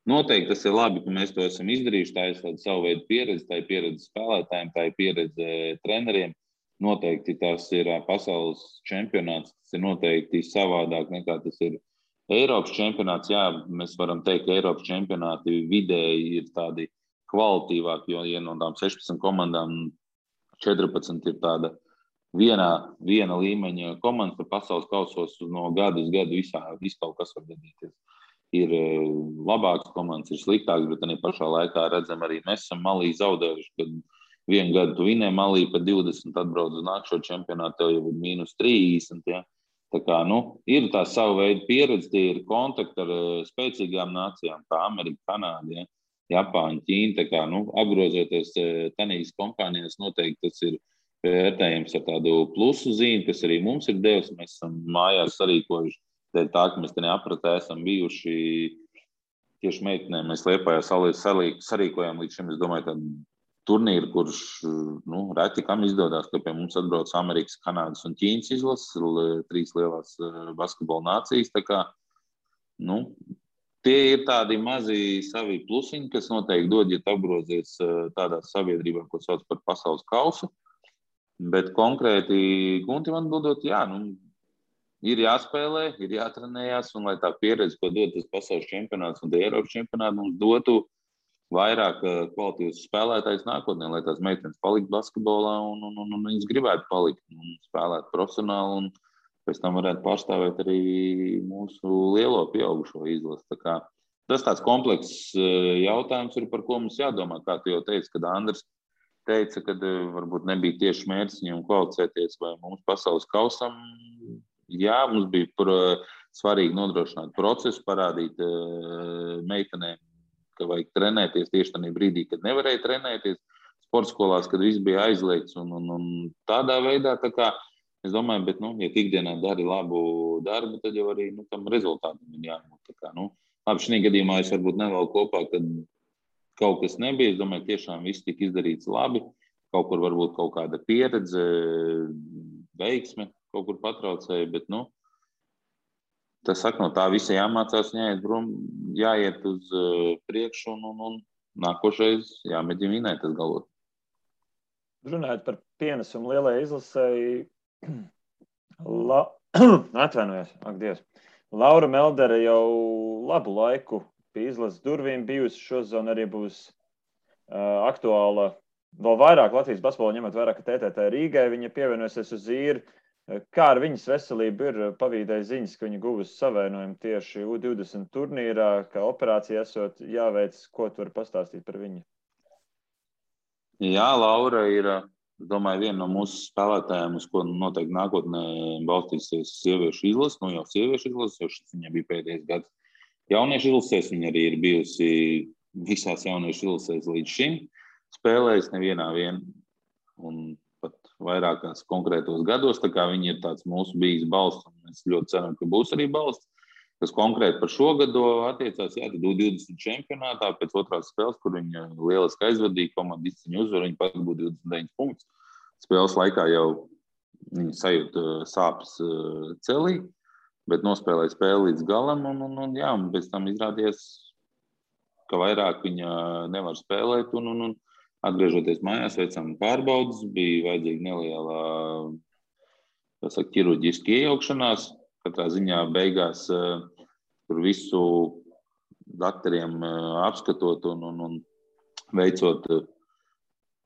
noteikti tas ir labi, ka mēs to esam izdarījuši. Tā ir tāda savu veidu pieredze, tā ir pieredze spēlētājiem, tā ir pieredze treneriem. Noteikti tas ir pasaules čempionāts, tas ir noteikti savādāk nekā tas ir Eiropas čempionāts. Jā, mēs varam teikt, ka Eiropas čempionāti vidēji ir tādi kvalitīvāki, jo ja no tām 16 komandām 14 ir tāda viena līmeņa komandas, tad pasaules kausos no gada uz gadu viss kaut kas var gadīties. Ir labākas komandas, ir sliktākas, bet arī pašā laikā redzam arī mēs esam Malī zaudējuši, kad vienu gadu tu vinē Malī par 20, atbrauc uz nākšo čempionātu, tev jau ir -30, ja. Tā kā, ir tā sava veida pieredze, tie ir kontakti ar spēcīgām nācijām, kā Amerika, Kanāda, ja, Japāņa, Ķīna. Tā kā, apgrozoties tanīs kompānijās, noteikti tas ir vērtējums ar tādu plusu zīmi, kas arī mums ir devis. Mēs esam mājās sarīkojuši, tā, ka mēs te neapratē esam bijuši tieši meitenēm. Mēs Liepājā sarīkojām līdz šim, es domāju, tādu turnīru, kurš reti kam izdodas, ka pie mums atbrauc Amerikas, Kanādas un Ķīnas izlases, 3 lielās basketbola nācijas. Tā kā, tie ir tādi mazi savi plusiņi, kas noteikti dod, ja tu apgrozies tādā sabiedrībā, ko sauc par pasaules kausu. Bet konkrēti, Gunti man dodot, ir jāspēlē, ir jātrenējās, un lai tā pieredze, ko dod tas pasaules čempionāts un Eiropas čempionāts, mums dotu vairāk kvalitīvas spēlētājs nākotnē, lai tās meitenes paliktu basketbolā un viņas gribētu palikt un spēlēt profesionāli un pēc tam varētu pārstāvēt arī mūsu lielo pieaugušo izlasi. Tā kā tas tāds komplekss jautājums ir, par ko mums jādomā. Kā tu jau teici, kad Andris teica, ka varbūt nebija tieši mērķis viņam kvalificēties vai mums pasaules kausam. Jā, mums bija svarīgi nodrošināt procesu, parādīt meitenēm, ka vajag trenēties tieši tajā brīdī, kad nevarēja trenēties sporta skolās, kad viss bija aizliegts un tādā veidā. Tā kā, es domāju, bet, ja ikdienā dari labu darbu, tad jau arī tam rezultātam ir jābūt. Tā kā, labi, šī gadījumā es varbūt nevēlu kopā, kad kaut kas nebija. Es domāju, tiešām viss tika izdarīts labi. kaut kur varbūt kaut kāda pieredze, veiksme kaut kur patraucēja, bet, tas saka, no tā visa jāmācās, jāiet uz priekšu un nākošais jāmēģina vinēt tas galvot. Runājot par pienesumu lielajai izlasēji, atvainojos, ak Dievs. Laura Meldere jau labu laiku pie izlases durvīm bijusi, šosezon arī būs aktuāla vēl vairāk Latvijas basketbolu, ņemot vairāk, ka TTT Rīgai viņa pievienosies uz īri. Kā ar viņas veselību ir pavīdēja ziņas, ka viņa guvusi savainojumu tieši U20 turnīrā, ka operācija esot jāveic, ko tu vari pastāstīt par viņu? Jā, Laura ir, es domāju, viena no mūsu spēlētājiem, uz ko noteikti nākotnē balstīsies sieviešu izlases, jau sieviešu izlases, jo šis viņai bija pēdējais gads jauniešu izlasēs, viņa arī ir bijusi visās jauniešu izlasēs līdz šim, spēlējis nevienā un pat vairākās konkrētos gados, tā kā viņi ir tāds mūsu bijis balsts, un mēs ļoti ceram, ka būs arī balsts, kas konkrēti par šo gadu attiecās, tad U20 čempionātā pēc otrās spēles, kur viņa lieliski aizvadīja, komanda izcīņa uzvaru, viņa pat būtu 29 punktus. Spēles laikā jau viņa sajūta sāpes celī, bet nospēlēja spēli līdz galam, un pēc tam izrādījās, ka vairāk viņa nevar spēlēt, un atgriežoties mājās, veicām pārbaudas, bija vajadzīga neliela ķirurģiska iejaukšanās. Katrā ziņā beigās tur visu daktariem apskatot un veicot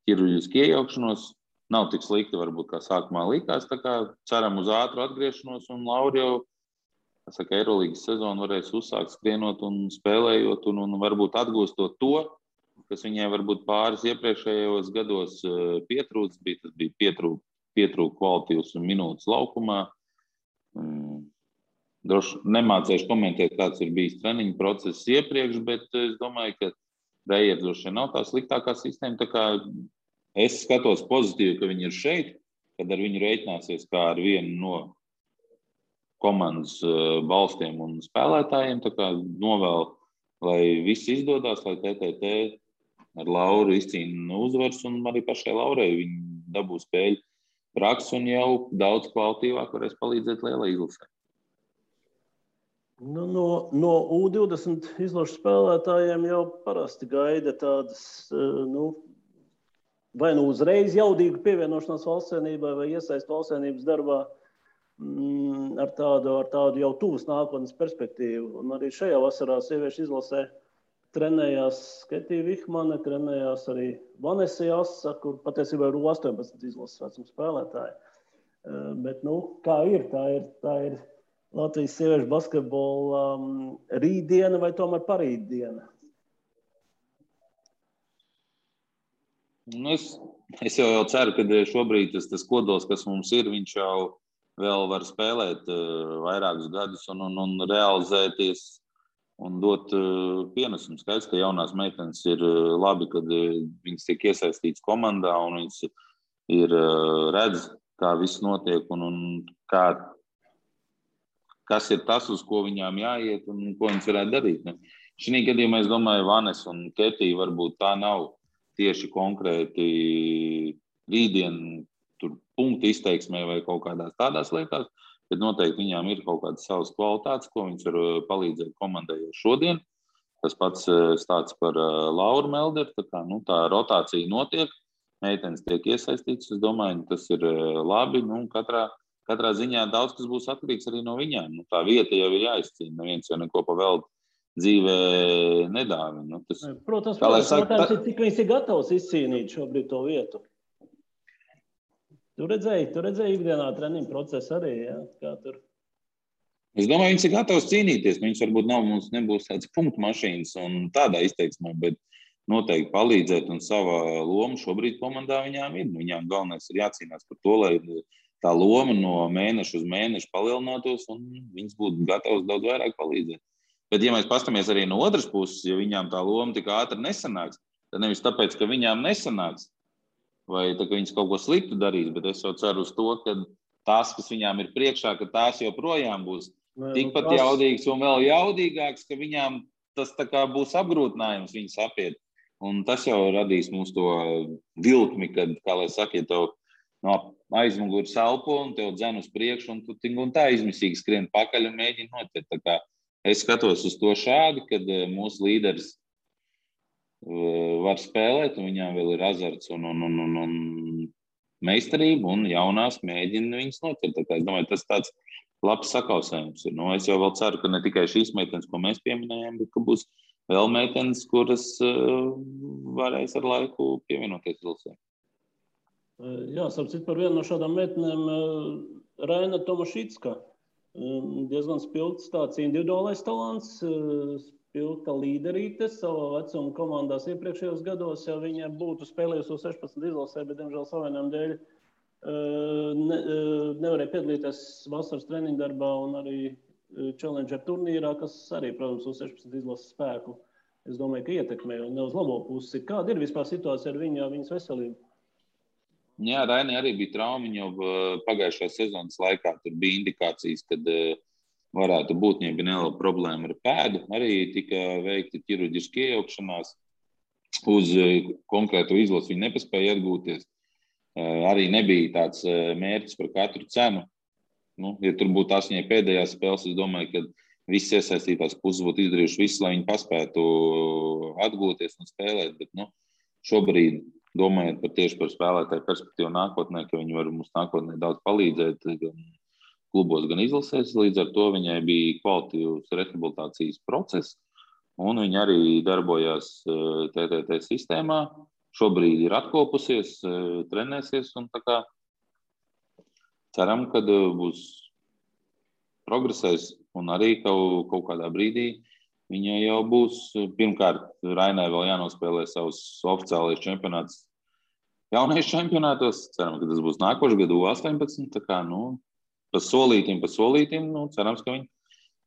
ķirurģisku iejaukšanos. Nav tik slikti, varbūt, kā sākumā likās. Tā kā ceram uz ātru atgriešanos, un Laura jau, Eirolīgas sezonu varēs uzsākt skrienot un spēlējot, un varbūt atgūstot to, kas viņai varbūt pāris iepriekšējos gados pietrūcis, tas bija pietrūka kvalitīvas un minūtes laukumā. Droši nemācēšu komentēt, kāds ir bijis treniņu process iepriekš, bet es domāju, ka Reija droši nav tā sliktākā sistēma. Tā kā es skatos pozitīvi, ka viņi ir šeit, kad ar viņu rēķināsies kā ar vienu no komandas balstiem un spēlētājiem. Tā kā novēl, lai viss izdodas, lai TTT ar Lauru izcīna uzvaras, un arī pašai Laurai viņi dabū spēļu praksi un jau daudz kvalitīvāk varēs palīdzēt lielai izlasē. No U20 izlašu spēlētājiem jau parasti gaida tādas, vai uzreiz jaudīgu pievienošanās valstsienībai vai iesaist valstsienības darbā ar tādu jau tuvas nākotnes perspektīvu. Un arī šajā vasarā sieviešu izlasē trenējās Ketija Vihmane, trenējās arī Vanesa Jasa, kur patiesībā ir 18 izlases vecuma spēlētāji. Bet, kā ir, tā ir Latvijas sieviešu basketbola rītdiena vai tomēr parītdiena? Es jau ceru, ka šobrīd tas kodols, kas mums ir, viņš jau vēl var spēlēt vairākus gadus un realizēties un dot pienesumu. Skaidrs, ka jaunās meitenes ir labi, kad viņas tiek iesaistītas komandā un viņas ir redz, kā viss notiek un kas ir tas, uz ko viņām jāiet un ko viņas varētu darīt. Šī gadījumā es domāju, Vanes un Ketija varbūt tā nav tieši konkrēti rītdien tur punktu izteiksmē vai kaut kādās tādās lietās, bet noteikti viņām ir kaut kādas savas kvalitātes, ko viņas var palīdzēt komandai šodien. Tas pats stāsts par Lauru Melderu, tā rotācija notiek, meitenes tiek iesaistītas, es domāju, tas ir labi, katrā ziņā daudz kas būs atkarīgs arī no viņām. Tā vieta jau ir jāizcīna, neviens jau neko pa velti dzīvē nedāvina. Protams, cik viņas ir gatavs izcīnīt šobrīd to vietu. Tu redzēji ikdienā treniņu procesu arī, ja? Kā tur? Es domāju, viņas ir gatavs cīnīties. Viņas varbūt mums nebūs tāds punktu mašīnas un tādā izteiksmē, bet noteikti palīdzēt un savā loma šobrīd komandā viņām ir. Viņām galvenais ir jācīnās par to, lai tā loma no mēneša uz mēnešu palielinātos un viņas būtu gatavas daudz vairāk palīdzēt. Bet, ja mēs pastamies arī no otras puses, ja viņām tā loma tik ātri nesanāks, tad nevis tāpēc, ka viņām nesanāks, vai tā, ka viņas kaut ko sliktu darīs, bet es jau ceru uz to, ka tās, kas viņām ir priekšā, ka tās joprojām būs tikpat jaudīgas un vēl jaudīgākas, ka viņām tas tā kā būs apgrūtinājums viņas apiet. Un tas jau radīs mums to vilkmi, kad, kā lai saka, ja tev no aizmugures elpo un tev dzen uz priekšu, un tu un tā izmisīgi skrien pakaļ un mēģini noķert. Tā kā es skatos uz to šādi, kad mūsu līderis var spēlēt, un viņām vēl ir azarts un meistarība, un jaunās mēģina viņas noķert. Tā kā es domāju, tas tāds labs sakausējums ir. Es jau vēl ceru, ka ne tikai šīs meitenes, ko mēs pieminējām, bet ka būs vēl meitenes, kuras varēs ar laiku pievienoties izlasē. Jā, sapcīt par vienu no šādām meitenēm Raina Tomašicka. Diezgan spilgts tāds individuālais talants, spilgta līderīte savā vecuma komandās iepriekšējos gados. Ja viņa būtu spēlējusi 16 izlasē, bet, diemžēl, savainām dēļ nevarēja piedalīties vasaras treniņu darbā un arī Challenger turnīrā, kas arī, protams, uz 16 izlases spēku, es domāju, ka ietekmē un ne uz labo pusi. Kāda ir vispār situācija ar viņas veselību? Jā, Rainai arī bija trauma. Viņa jau pagājušā sezonas laikā tur bija indikācijas, kad varētu būt, ja bija neliela problēma ar pēdu. Arī tika veikti ķirurģiski iejaukšanās uz konkrētu izlasi. Viņa nepaspēja atgūties. Arī nebija tāds mērķis par katru cenu. Ja tur būtu tās viņai pēdējās spēles, es domāju, ka visas iesaistītās puses būtu izdarījuši visu, lai viņi paspētu atgūties un spēlēt. Bet šobrīd, domājot tieši par spēlētāju perspektīvu nākotnē, ka viņi var mums nākotnē daudz palīdzēt gan klubos, gan izlasēs, līdz ar to viņai bija kvalitīvs rehabilitācijas process, un viņa arī darbojās TTT sistēmā. Šobrīd ir atkopusies, trenēsies, un tā kā ceram, ka būs progresēs, un arī kaut kādā brīdī viņa jau būs. Pirmkārt, Rainai vēl jānospēlē savus oficiālais čempionāts jaunais čempionātos. Ceram, ka tas būs nākošais gadu 18. Tā kā, pa solītim, cerams, ka viņi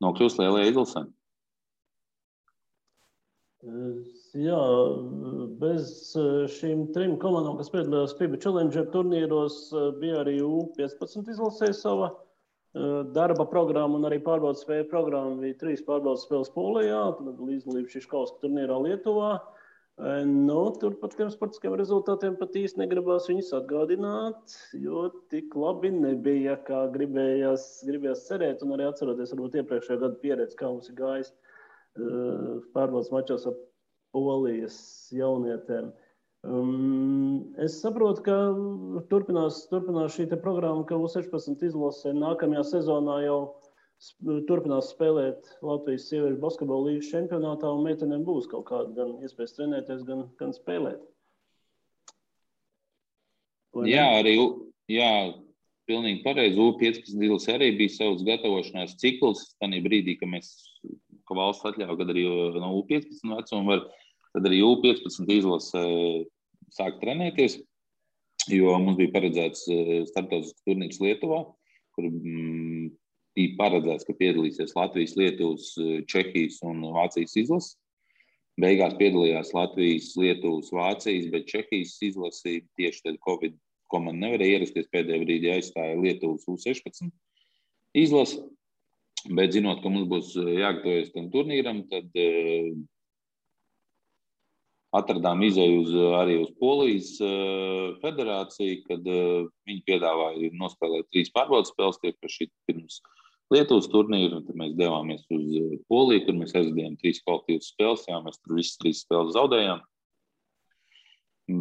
nokļūs lielajā izlasē. Jā, bez šīm 3 komandām, kas piedalījās FIBA Challenger turnīros, bija arī U15 izlasē sava darba programma un arī pārbaudas spēļu programma. Bija 3 pārbaudas spēles Polijā, tad līdzdalība Šiškauska turnīrā Lietuvā. Tur par tiem sportiskiem rezultātiem pat īsti negribās viņus atgādināt, jo tik labi nebija, kā gribējās cerēt, un arī atceroties varbūt iepriekšējā gada pieredzi, kā mums ir gājis pārbaudas mačos ar Polijas jaunietēm. Es saprotu, ka turpinās šī programma, ka U16 izlasē nākamajā sezonā jau turpinās spēlēt Latvijas sieviešu basketbola līgas čempionātā, un meitenēm būs kaut kāda gan iespējas trenēties, gan spēlēt. Jā, pilnīgi pareizi. U15 izlasē arī bija savs gatavošanās cikls. Tanī brīdī, ka valsts atļauj, kad arī no U15 vecuma var, tad arī U15 izlasē sāk trenēties, jo mums bija paredzēts starptautisks turnīrs Lietuvā, kur bija paredzēts, ka piedalīsies Latvijas, Lietuvas, Čehijas un Vācijas izlases. Beigās piedalījās Latvijas, Lietuvas, Vācijas, bet Čehijas izlasi tieši tad Covid komanda nevarēja ierasties, pēdējā brīdī aizstāja Lietuvas U16 izlasi. Bet zinot, ka mums būs jāgatavojas tam turnīram, tad atradām izēju arī uz Polijas federāciju, kad viņi piedāvāja nospēlēt 3 pārbaudas spēles tieši pirms Lietuvas turnīru. Tad mēs devāmies uz Poliju, kur mēs aizvedījām 3 kvalitīvas spēles. Jā, mēs tur visas 3 spēles zaudējām.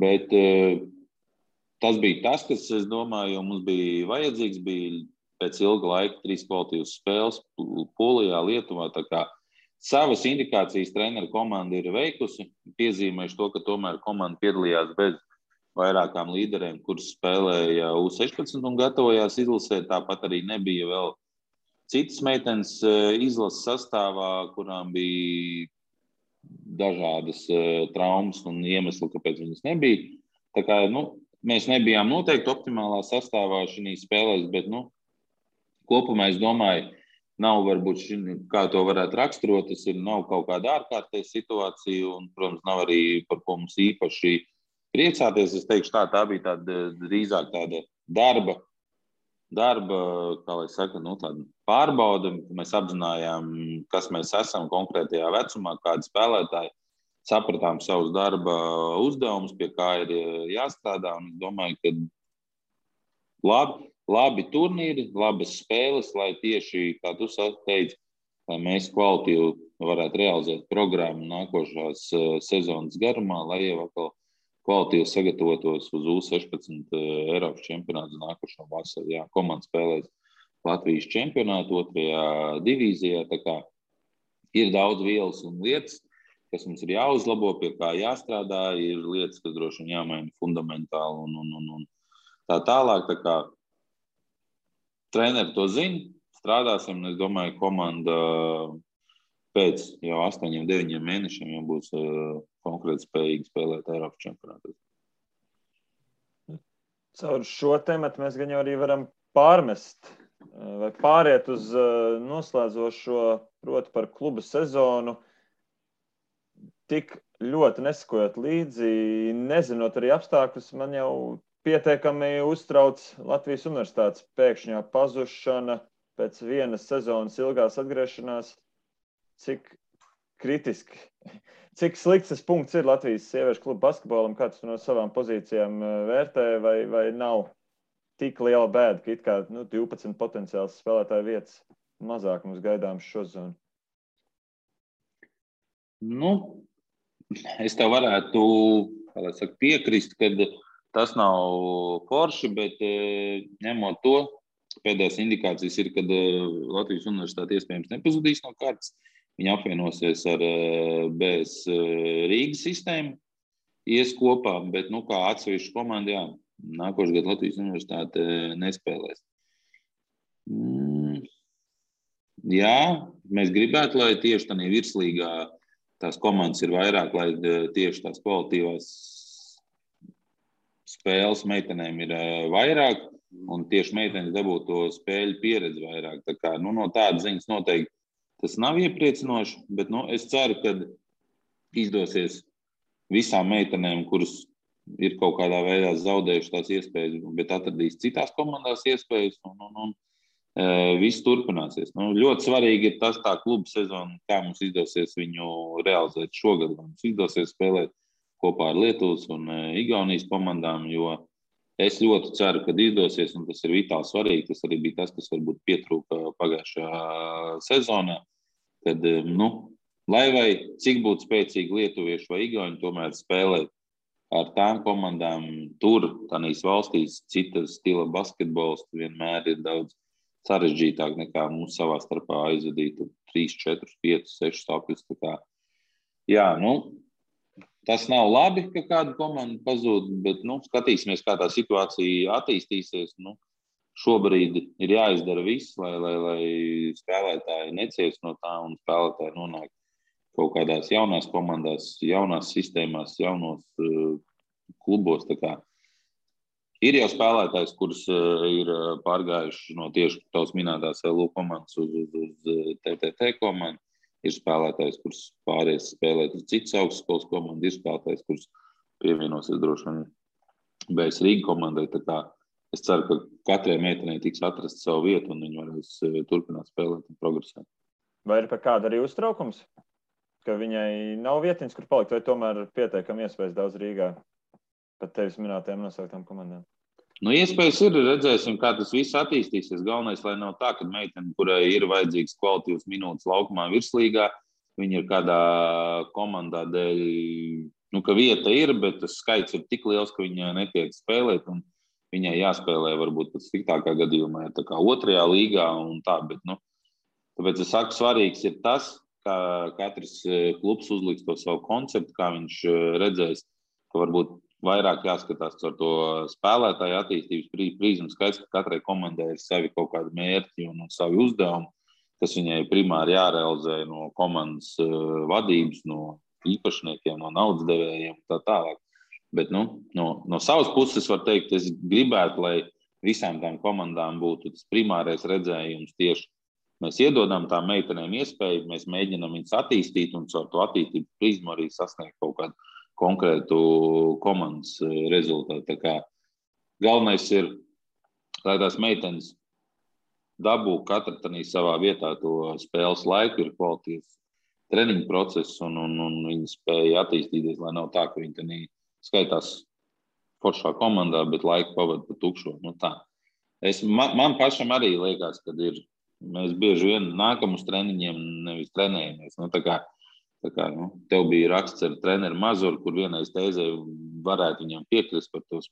Bet tas bija tas, kas, es domāju, mums bija vajadzīgs, bija pēc ilga laika 3 kvalitīvas spēles Polijā, Lietuvā. Tā kā savas indikācijas treneru komanda ir veikusi. Piezīmējuši to, ka tomēr komanda piedalījās bez vairākām līderiem, kuras spēlēja U16 un gatavojās izlasē. Tāpat arī nebija vēl citas meitenes izlases sastāvā, kurām bija dažādas traumas un iemesli, kāpēc viņas nebija. Tā kā, mēs nebijām noteikti optimālā sastāvā šīs spēlēs, bet, kopumā, es domāju, nav varbūt, kā to varētu raksturot, tas nav kaut kāda ārkārtēja situācija un, protams, nav arī par ko mums īpaši priecāties. Es teikšu tā bija drīzāk tāda darba, kā lai saka, tāda pārbauda. Mēs apzinājām, kas mēs esam konkrētajā vecumā, kādi spēlētāji. sapratām savus darba uzdevumus, pie kā ir jāstrādā. Un es domāju, ka labi turnīri, labas spēles, lai tieši, kā tu teici, lai mēs kvalitīvi varētu realizēt programmu nākošās sezonas garumā, lai jau atkal kvalitīvi sagatavotos uz U16 Eiropas čempionātu nākošo vasaru. Jā, komanda spēlēs Latvijas čempionātu 2. divīzijā. Tā kā ir daudz vielas un lietas, kas mums ir jāuzlabo, pie kā jāstrādā, ir lietas, kas droši vien jāmaina fundamentāli un tā tālāk. Tā kā treneri to zina, strādāsim, un es domāju, komanda pēc jau 8-9 mēnešiem jau būs konkrēti spējīgi spēlēt Eiropas čempionātos. Caur šo tematu mēs gan jau arī varam pārmest vai pāriet uz noslēdzošo, proti par klubu sezonu. Tik ļoti nesakojot līdzi, nezinot arī apstākļus, man jau pietiekami uztrauc Latvijas universitātes pēkšņā pazušana pēc vienas sezonas ilgās atgriešanās. Cik kritiski, cik slikts tas punkts ir Latvijas sieviešu klubu basketbolam, kā tu no savām pozīcijām vērtē, vai nav tik liela bēda, ka it kā 12 potenciāls spēlētāju vietas mazāk mums gaidāms šo zonu? Es tev varētu piekrist, ka tas nav forši, bet ņemot to, pēdējās indikācijas ir, kad Latvijas universitāte iespējams nepazudīs no kārtas. Viņi apvienosies ar BS Rīgas sistēmu, ies kopā, bet kā atsevišķu komandu, jā, nākošais gads Latvijas universitāte nespēlēs. Jā, mēs gribētu, lai tieši tādā virslīgā tās komandas ir vairāk, lai tieši tās kvalitīvās spēles meitenēm ir vairāk, un tieši meitenes dabūtu to spēļu pieredzi vairāk. Tā kā, no tādas ziņas noteikti tas nav iepriecinoši, bet es ceru, ka izdosies visām meitenēm, kuras ir kaut kādā veidā zaudējuši tās iespējas, bet atradīs citās komandās iespējas, un viss turpināsies. Ļoti svarīgi ir tas tā kluba sezona, kā mums izdosies viņu realizēt šogad. Mums izdosies spēlēt kopā ar Lietuvas un Igaunijas komandām, jo es ļoti ceru, ka izdosies, un tas ir vitāli svarīgi. Tas arī bija tas, kas varbūt pietrūka pagājušajā sezonā, kad, lai vai cik būtu spēcīgi lietuvieši vai igauņi, tomēr spēlēt ar tām komandām tur, tādīs valstīs, citas stila basketbols vienmēr ir daudz sarežģītāk nekā mums savā starpā aizvadīt 3, 4, 5, 6 stāvkļus. Jā, tas nav labi, ka kāda komanda pazūd, bet skatīsimies, kā tā situācija attīstīsies. Šobrīd ir jāizdara viss, lai spēlētāji neciest no tā un spēlētāji nonāk kaut kādās jaunās komandās, jaunās sistēmās, jaunos klubos. Tā kā ir jau spēlētājs, kurus ir pārgājuši no tieši tavas minētās LU komandas uz TTT komandu. Ir spēlētājs, kurš pāries spēlēt uz citas augstskolas komandu. Ir spēlētājs, kurš pievienosies droši vien BS Rīga komandai. Tā kā es ceru, ka katrai meitenei tiks atrast savu vietu un viņi varēs turpināt spēlēt un progresēt. Vai ir par kādu arī uztraukums? Ka viņai nav vietiņas, kur palikt, vai tomēr pietiekami iespējas daudz Rīgā pat tevis minētajām nosauktām komandām? Iespējas ir, redzēsim, kā tas viss attīstīsies. Galvenais, lai nav tā, ka meitene, kurai ir vajadzīgs kvalitīvas minūtes laukumā virslīgā, viņa ir kādā komandā dēļ, ka vieta ir, bet tas skaits ir tik liels, ka viņa netiek spēlēt, un viņai jāspēlē varbūt pat sliktākā gadījumā, tā kā 2. līgā un tā, bet, tāpēc es saku, svarīgs ir tas, kā katrs klubs uzliks to savu konceptu, kā viņš redzēs, ka varbūt vairāk jāskatās ar to spēlētāju attīstības prizmu. Skaidrs, ka katrai komandai ir savi kaut kādi mērķi un savi uzdevumi, kas viņai primāri jārealizē no komandas vadības, no īpašniekiem, no naudas devējiem un tā tālāk. Bet no savas puses var teikt, es gribētu, lai visām tām komandām būtu tas primārais redzējums tieši. Mēs iedodam tām meitenēm iespēju, mēs mēģinām viņus attīstīt un caur to attīstību prizmu arī sasniegt kaut kādu konkrētu komandas rezultātu. Tā kā galvenais ir, lai tās meitenes dabū katra savā vietā to spēles laiku, ir kvalitīvs treniņu procesu un viņi spēja attīstīties, lai nav tā, ka viņi te skaitās foršā komandā, bet laiku pavada pa tukšo. Nu, tā. Man pašam arī liekas, ka mēs bieži vien nākam uz treniņiem, nevis trenējamies. Nu, tā kā tev bija raksts ar treneru Mazuru, kur vienais teizē varētu viņam piekrist par tos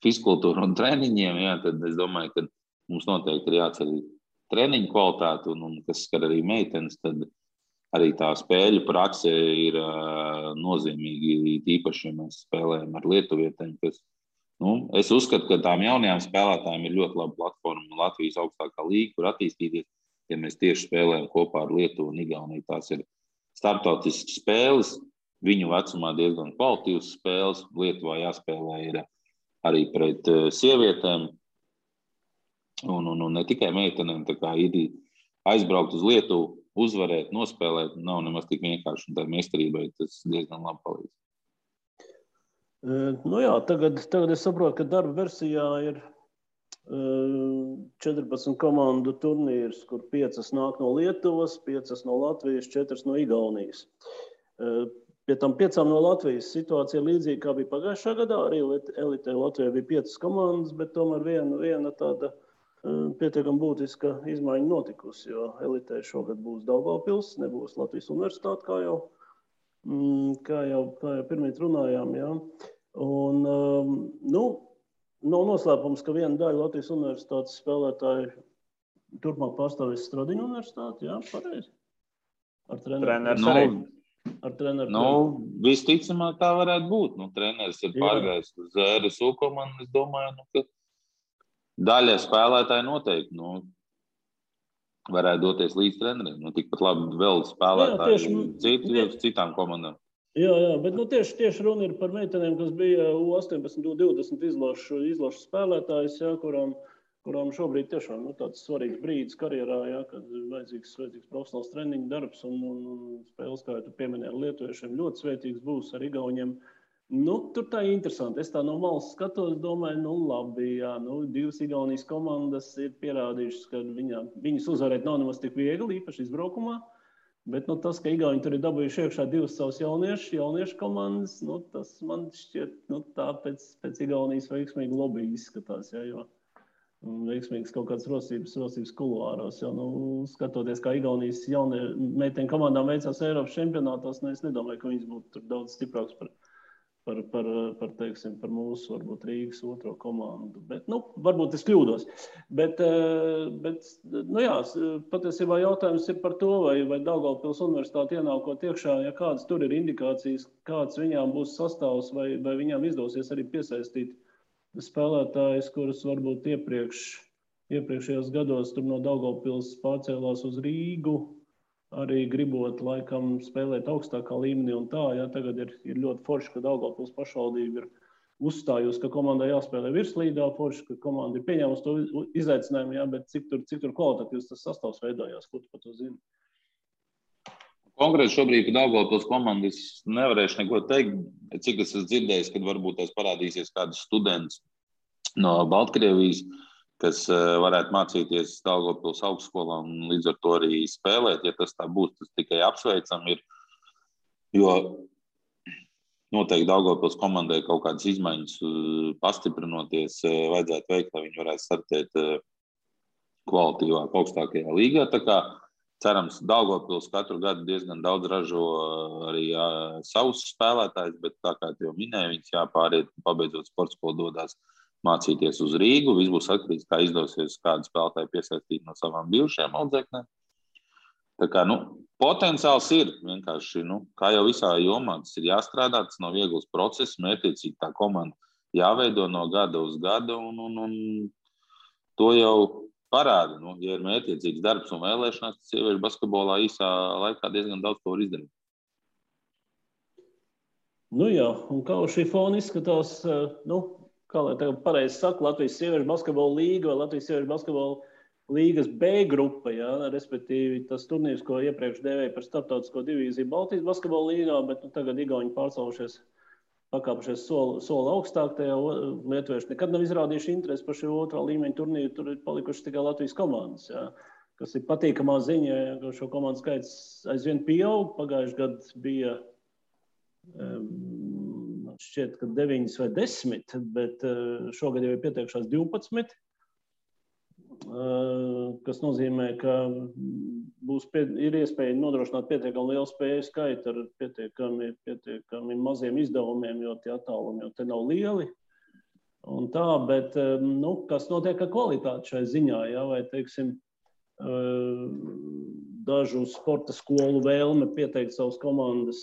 fiskultūru un treniņiem, jā, tad es domāju, ka mums noteikti ir jāceļ treniņu kvalitāti un kas skar arī meitenes, tad arī tā spēļu prakse ir nozīmīgi, īpaši, ja mēs spēlējam ar lietuvietēm, kas, es uzskatu, ka tām jaunajām spēlētājiem ir ļoti laba platforma Latvijas augstākā līga, kur attīstīties, ja mēs tieši spēlējam kopā ar Lietuvu un Igauniju. Tās ir starptautiskas spēles, viņu vecumā diezgan kvalitīvas spēles. Lietuvā jāspēlē ir arī pret sievietēm un ne tikai meitenēm. Tā kā ir aizbraukt uz Lietuvu, uzvarēt, nospēlēt, nav nemaz tik vienkārši. Un tā meistarībai tas diezgan labi palīdz. Nu jā, tagad es saprotu, ka darba versijā ir 14 komandu turnīrs, kur 5 nāk no Lietuvas, 5 no Latvijas, 4 no Igaunijas. Pie tam 5 no Latvijas situācija līdzīga, kā bija pagājušā gadā. Arī elitē Latvijā bija 5 komandas, bet tomēr viena tāda pietiekami būtiska izmaiņa notikusi, jo elitē šogad būs Daugavpils, nebūs Latvijas universitāte, kā jau pirmīt runājām. Jā. Un, nav noslēpums, ka viena daļa Latvijas universitātes spēlētāji turpmāk pārstāvēs Stradiņu universitāti, jā, pareizi? Ar treneru arī. Ar treneru. Visticamāk tā varētu būt. Treneris ir pārgājis uz ZRSU komandu, es domāju, ka daļa spēlētāji noteikti, varētu doties līdz treneriem. Tikpat labi vēl spēlētāji citām komandām. Jā, bet tieši runa ir par meitenēm, kas bija U18, U20 izlašu spēlētājs, jā, kurām šobrīd tiešām tāds svarīgs brīdis karjerā, jā, kad vajadzīgs profesionāls treniņu darbs un spēles, kā tu pieminēji, ar lietuviešiem ļoti svētīgs būs ar igauņiem. Tur tā ir interesanti. Es tā no malas skatos, domāju, labi, jā, 2 Igaunijas komandas ir pierādījušas, ka viņas uzvarēt nav nemaz tik viegli, īpaši izbraukumā. Bet tas, ka Igauni tur ir dabūjuši iekšā 2 savus jauniešu komandas, tas man šķiet, tā pēc Igaunijas veiksmīgi lobby izskatās, jā, jo veiksmīgas kaut kādas rosības kuluāros, jo, skatoties, kā Igaunijas meiteņu komandām veicās Eiropas čempionātos, es nedomāju, ka viņas būtu tur daudz stiprāks par mūsu, varbūt Rīgas otro komandu. Bet, varbūt es kļūdos. Bet jā, patiesībā jautājums ir par to, vai Daugavpils universitāte ienākot iekšā, ja kādas tur ir indikācijas, kāds viņām būs sastāvs, vai viņām izdosies arī piesaistīt spēlētājus, kurus varbūt iepriekšējos gados tur no Daugavpils pārcēlās uz Rīgu, arī gribot laikam spēlēt augstākā līmenī un tā, jā, tagad ir ļoti forši, ka Daugavpils pašvaldība ir uzstājusi, ka komandai jāspēlē virslīdā, forši, ka komanda ir pieņēmusi to izaicinājumu, jā, bet cik tur kvalitatīvs tas sastāvs veidojās, ko tu par to zini? Konkrēti šobrīd, kad Daugavpils komandas nevarēšu neko teikt, cik es esmu dzirdējis, kad varbūt tās parādīsies kāds students no Baltkrievijas, kas varētu mācīties Daugavpils augstskolā un līdz ar to arī spēlēt. Ja tas tā būs, tas tikai apsveicam ir, jo noteikti Daugavpils komandai kaut kādas izmaiņas pastiprinoties vajadzētu veikt, lai viņi varētu startēt kvalitīvāk augstākajā līgā. Tā kā cerams, Daugavpils katru gadu diezgan daudz ražo arī savus spēlētājus, bet tā kā jau minēju, viņas jāpāriet, pabeidzot sporta skolu dodās mācīties uz Rīgu. Viss būs atkarīgs, kā izdosies kādu spēlētāju piesaistīt no savām bijušajām audzēknēm. Tā kā, potenciāls ir vienkārši, kā jau visā jomā, tas ir jāstrādā, tas nav viegls process, mērķiecīgi tā komanda jāveido no gada uz gadu un to jau parāda. Ja ir mērķiecīgs darbs un vēlēšanās, tas sieviešu basketbolā īsā laikā diezgan daudz ko var izdarīt. Jā, un kā uz šī fona izskatās, kā lai tagad pareizi saka, Latvijas sieviešu basketbola līga vai Latvijas sieviešu basketbola līgas B grupa, jā, respektīvi tas turnīrs, ko iepriekš dēvēja par starptautisko divīziju Baltijas basketbola līgā, bet tagad Igauni pakāpušies soli augstāk, tajā lietuvieši nekad nav izrādījuši interesi par šī otrā līmeņa turnīru, tur ir palikuši tikai Latvijas komandas. Jā. kas ir patīkamā ziņa, ka šo komandu skaits aizvien pieaug. Pagājuši gadu bija šķiet, ka 9 vai 10, bet šogad jau ir pieteikušās 12. Kas nozīmē, ka ir iespēja nodrošināt pietiekami lielu spēju skaitu ar pietiekami maziem izdevumiem, jo tie attālumi jau te nav lieli. Un tā, bet kas notiek ar kvalitāti šai ziņā, ja? Vai, teiksim, dažu sporta skolu vēlme pieteikt savas komandas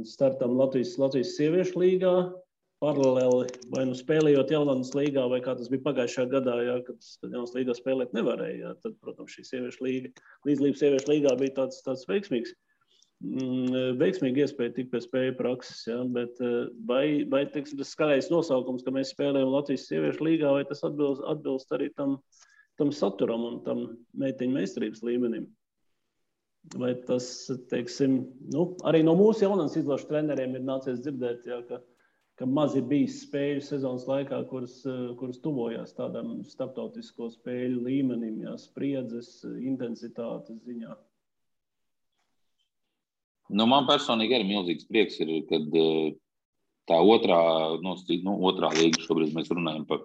startam Latvijas sieviešu līgā, paralēli vai spēlējot Jaunas līgā, vai kā tas bija pagājušajā gadā, ja, kad Jaunas līgā spēlēt nevarēja. Ja, tad, protams, šī sieviešu līga, līdzdalība sieviešu līgā bija tāds veiksmīgi iespēja tikt pie spēju prakses. Ja, bet vai teiksim, tas skaļais nosaukums, ka mēs spēlējam Latvijas sieviešu līgā, vai tas atbilst arī tam saturam un tam meitiņu meistarības līmenim? Vai tas, teiksim, arī no mūsu Jaunas izlašu treneriem ir nācies dzirdēt, ja, ka maz ir bijis spēļu sezonas laikā, kuras tuvojās tādam starptautisko spēļu līmenim, ja, spriedzes, intensitātes ziņā. Man personīgi arī milzīgs prieks ir, kad tā otrā līga šobrīd mēs runājam par,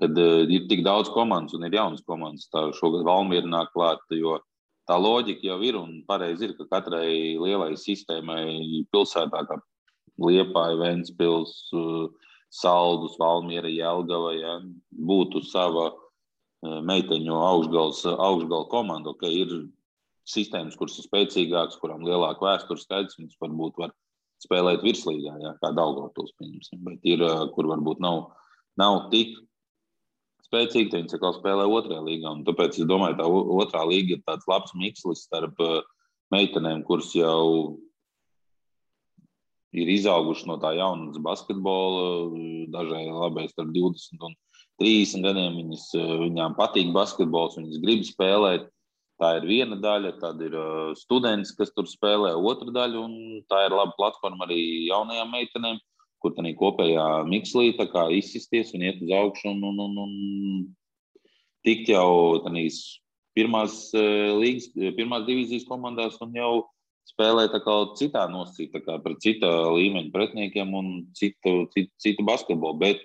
kad ir tik daudz komandas un ir jaunas komandas. Tā šogad Valmiera nāk klāt, jo tā loģika jau ir un pareizi ir, ka katrai lielai sistēmai pilsētā, kā Liepāja, Ventspils, Saldus, Valmiera, Jelgava, ja, būtu sava meiteņu augšgala komanda. Okay, ir sistēmas, kuras ir spēcīgākas, kurām lielāka vēstures skaidrs, viņas varbūt var spēlēt virslīgā, ja, kā Daugavpils, pieņemsim. Bet ir, kur varbūt nav tik spēcīgi, tad viņas atkal spēlē otrajā līgā. Un tāpēc es domāju, tā otrā līga ir tāds labs mikslis starp meitenēm, kuras jau ir izauguši no tā jaunas basketbola, dažai labai starp 20 un 30 gadiem. Viņām patīk basketbols, viņas grib spēlēt. Tā ir viena daļa, tad ir students, kas tur spēlē otra daļa, un tā ir laba platforma arī jaunajām meitenēm, kur tā kopējā mikslī tā kā izsisties un iet uz augšu un tikt jau tādīs pirmās divīzijas komandās un jau spēlē tā kā citā nosacīta, tā kā pret cita līmeņa pretiniekiem un citu basketbolu. Bet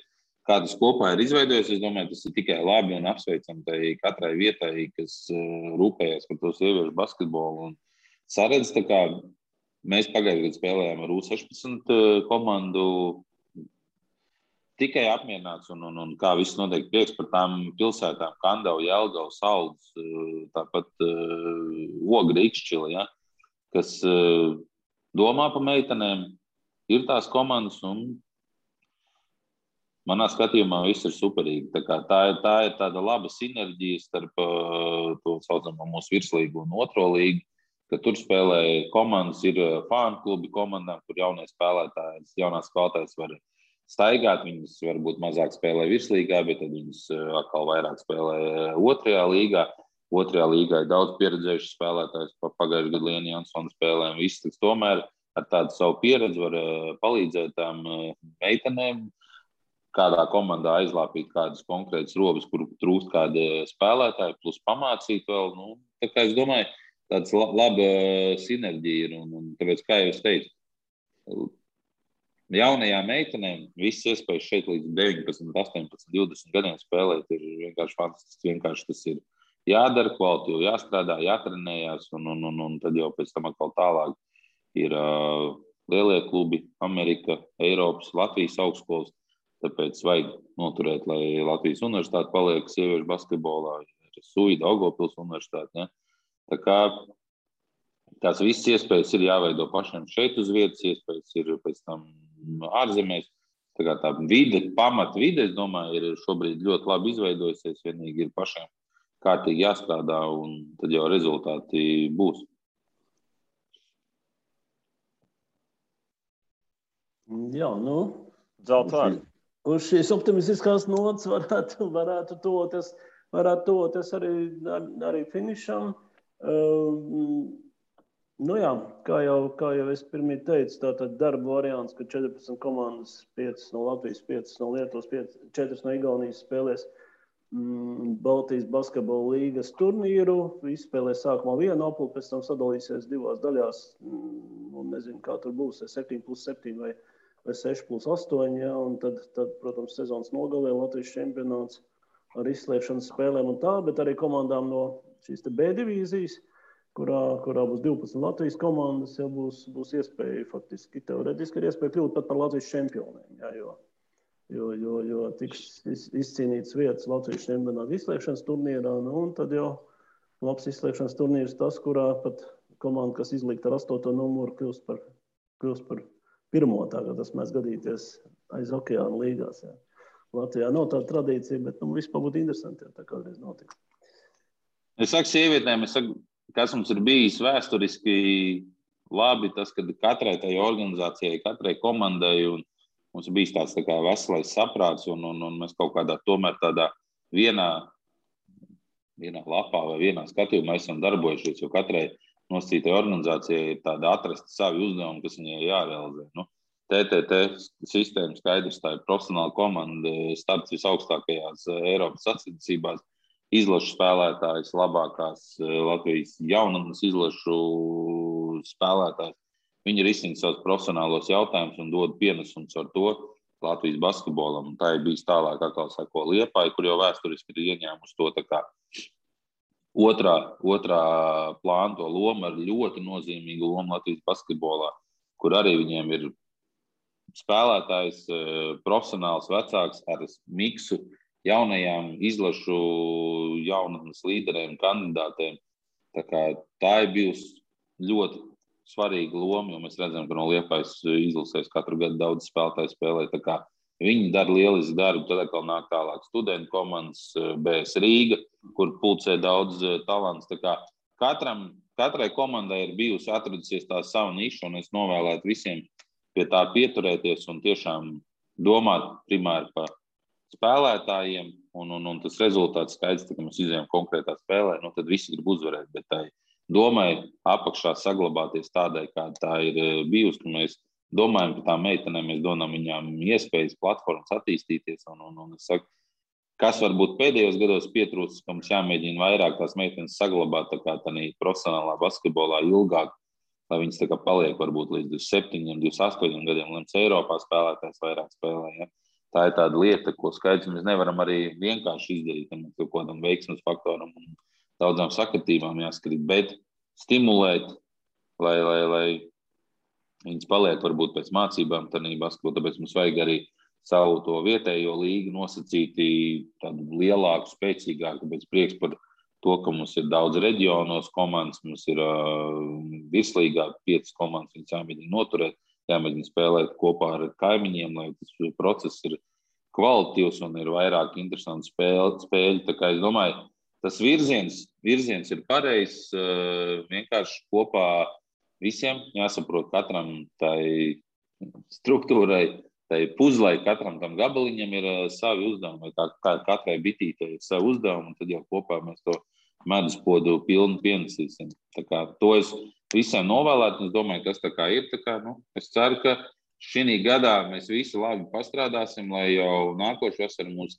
kā tas kopā ir izveidojies, es domāju, tas ir tikai labi un apsveicam katrai vietai, kas rūpējas par to sieviešu basketbolu. Un saredz, tā kā mēs pagājušajā gadā spēlējām ar U16 komandu, tikai apmierināts un kā viss notiek prieks par tām pilsētām, Kandava, Jelgava, Saldus, tāpat Ogra, Ikšķila, ja, kas domā par meitenēm, ir tās komandas un manā skatījumā viss ir superīgi. Tā ir tāda laba sinerģija starp to saucamo mūsu virslīgu un otro līgu, ka tur spēlē komandas, ir fānu klubi komandām, kur jaunās spēlētājas var staigāt, viņas varbūt mazāk spēlē virslīgā, bet tad viņas atkal vairāk spēlē otrajā līgā. Otrajā līgā ir daudz pieredzējuši spēlētājs, pagājušajā gadā Liena Jansona spēlēm. Viss tomēr ar tādu savu pieredzi var palīdzēt tām meitenēm, kādā komandā aizlāpīt kādas konkrētas robas, kur trūkst kāda spēlētāja, plus pamācīt vēl. Tā kā es domāju, tāds laba sinerģija ir. Un tāpēc, kā jau es teicu, jaunajām meitenēm visas iespējas šeit līdz 19, 18, 20 gadiem spēlēt ir vienkārši fantastiski. Vienkārši tas ir jādara, kvalitīvi jāstrādā, jātrenējās, un tad jau pēc tam atkal tālāk ir lielie klubi, Amerika, Eiropas, Latvijas augstskolas. Tāpēc vajag noturēt, lai Latvijas universitāte paliek sieviešu basketbolā, Suida, Daugavpils universitāte. Ja? Tā kā tās visas iespējas ir jāveido pašiem šeit uz vietas, iespējas ir pēc tam ārzemēs. Tā kā tā pamata vide, es domāju, ir šobrīd ļoti labi izveidojusies. Vienīgi ir pašiem kārtīgi jāstrādā, un tad jau rezultāti būs. Jā, Zeltvārdi. Uz šīs optimistiskās nots varētu toties arī finišam. Kā jau es pirmie teicu, tātad darba variants, ka 14 komandas, 5 no Latvijas, 5 no Lietuvas, 4 no Igaunijas spēlēs Baltijas basketbola līgas turnīru. Izspēlē sākumā vienu apli, pēc tam sadalīsies divās daļās. Un nezinu, kā tur būs, 7+7 vai 6+8. Ja? Un tad, protams, sezonas nogalē Latvijas čempionāts ar izslēgšanas spēlēm un tā, bet arī komandām no šīs te B divīzijas, kurā būs 12 Latvijas komandas, ja būs iespēja faktiski, teoretiski ir iespēja kļūt pat par Latvijas čempioniem. Ja? Jo tiks izcīnīts vietas Latvijas čempionāta izslēgšanas turnīrā, un tad jau labs izslēgšanas turnīrs tas, kurā pat komanda, kas izlikta ar 8. numuru, kļūst par pirmo, tā kā tas mēs gadīties aiz okeāna līgās. Ja. Latvijā nav tāda tradīcija, bet vispār būtu interesanti, ja tā kādreiz notiks. Es saku sievietēm, kas mums ir bijis vēsturiski labi, tas, ka katrai tai organizācijai, katrai komandai un mums ir bijis tāds tā kā veselais saprāts un mēs kaut kādā tomēr tādā vienā lapā vai vienā skatījumā esam darbojušies, jo katrai nosacītai organizācijai ir tāda atrast savi uzdevumi, kas viņai jārealizē. TTT sistēma skaidrs, tā ir profesionāla komanda, starts visaugstākajās Eiropas sacensībās, izlašu spēlētājs, labākās Latvijas jaunatnes izlašu spēlētājs. Viņi risina savus profesionālos jautājumus un dod pienesumus ar to Latvijas basketbolam. Tā ir bijis tālāk, atkal sako Liepāja, kur jau vēsturiski ir ieņēmusi to tā kā otrā plāna to lomu ar ļoti nozīmīgu lomu Latvijas basketbolā, kur arī viņiem ir spēlētājs, profesionāls vecāks ar miksu jaunajām izlašu jaunatnes līderiem, kandidātiem. Tā ir bijusi ļoti svarīga loma, jo mēs redzam, ka no Liepājas izlasēs katru gadu daudz spēlētāju spēlē. Viņi dara lielisku darbu, tad atkal nāk tālāk studentu komandas, BS Rīga, kur pulcē daudz talants. Katrai komandai ir bijusi atradusies tā sava niša, un es novēlētu visiem pie tā pieturēties un tiešām domāt primāri par spēlētājiem, un tas rezultāts skaidrs, ka mēs izējām konkrētā spēlē, tad visi grib uzvarēt, bet tai domai apakšā saglabāties tādai, kā tā ir bijusi, ka mēs domājam par tām meitenēm, mēs dodam viņām iespējas, platformas attīstīties, un es saku, kas varbūt pēdējos gados pietrūcis, ka mums jāmēģina vairāk tās meitenes saglabāt tā kā tādā profesionālā basketbolā ilgāk, lai viņas tā kā paliek varbūt līdz 27, 28 gadiem, līdz Eiropā spēlētājs vairāk spēlē. Ja? Tā ir tāda lieta, ko skaidrs mēs nevaram arī vienkārši izdarīt, ja mums kaut kādam veiksmes faktoram un daudzām sakritībām jāskrīt, bet stimulēt, lai viņas paliek varbūt pēc mācībām tādā basketbolā, tāpēc mums vajag arī savu to vietējo līgu nosacīti tādu lielāku, spēcīgāku, tāpēc prieks par to, ka mums ir daudz reģionos komandas, mums ir virslīgā 5 komandas, viņas jāmēģina noturēt, jāmēģina spēlēt kopā ar kaimiņiem, lai tas process ir kvalitatīvs un ir vairāk interesanti spēļi. Tā kā es domāju, tas virziens ir pareizs, vienkārši kopā visiem jāsaprot katram tai struktūrai, tai puzlai, katram tam gabaliņam ir savi uzdevumi, vai katrai bitītei ir savi uzdevumi, un tad jau kopā mēs to meduspodu pilnu pienesīsim. Tā kā to es visiem novēlētu, un es domāju, kas tā kā ir. Es ceru, ka šī gadā mēs visi labi pastrādāsim, lai jau nākošu vasaru mums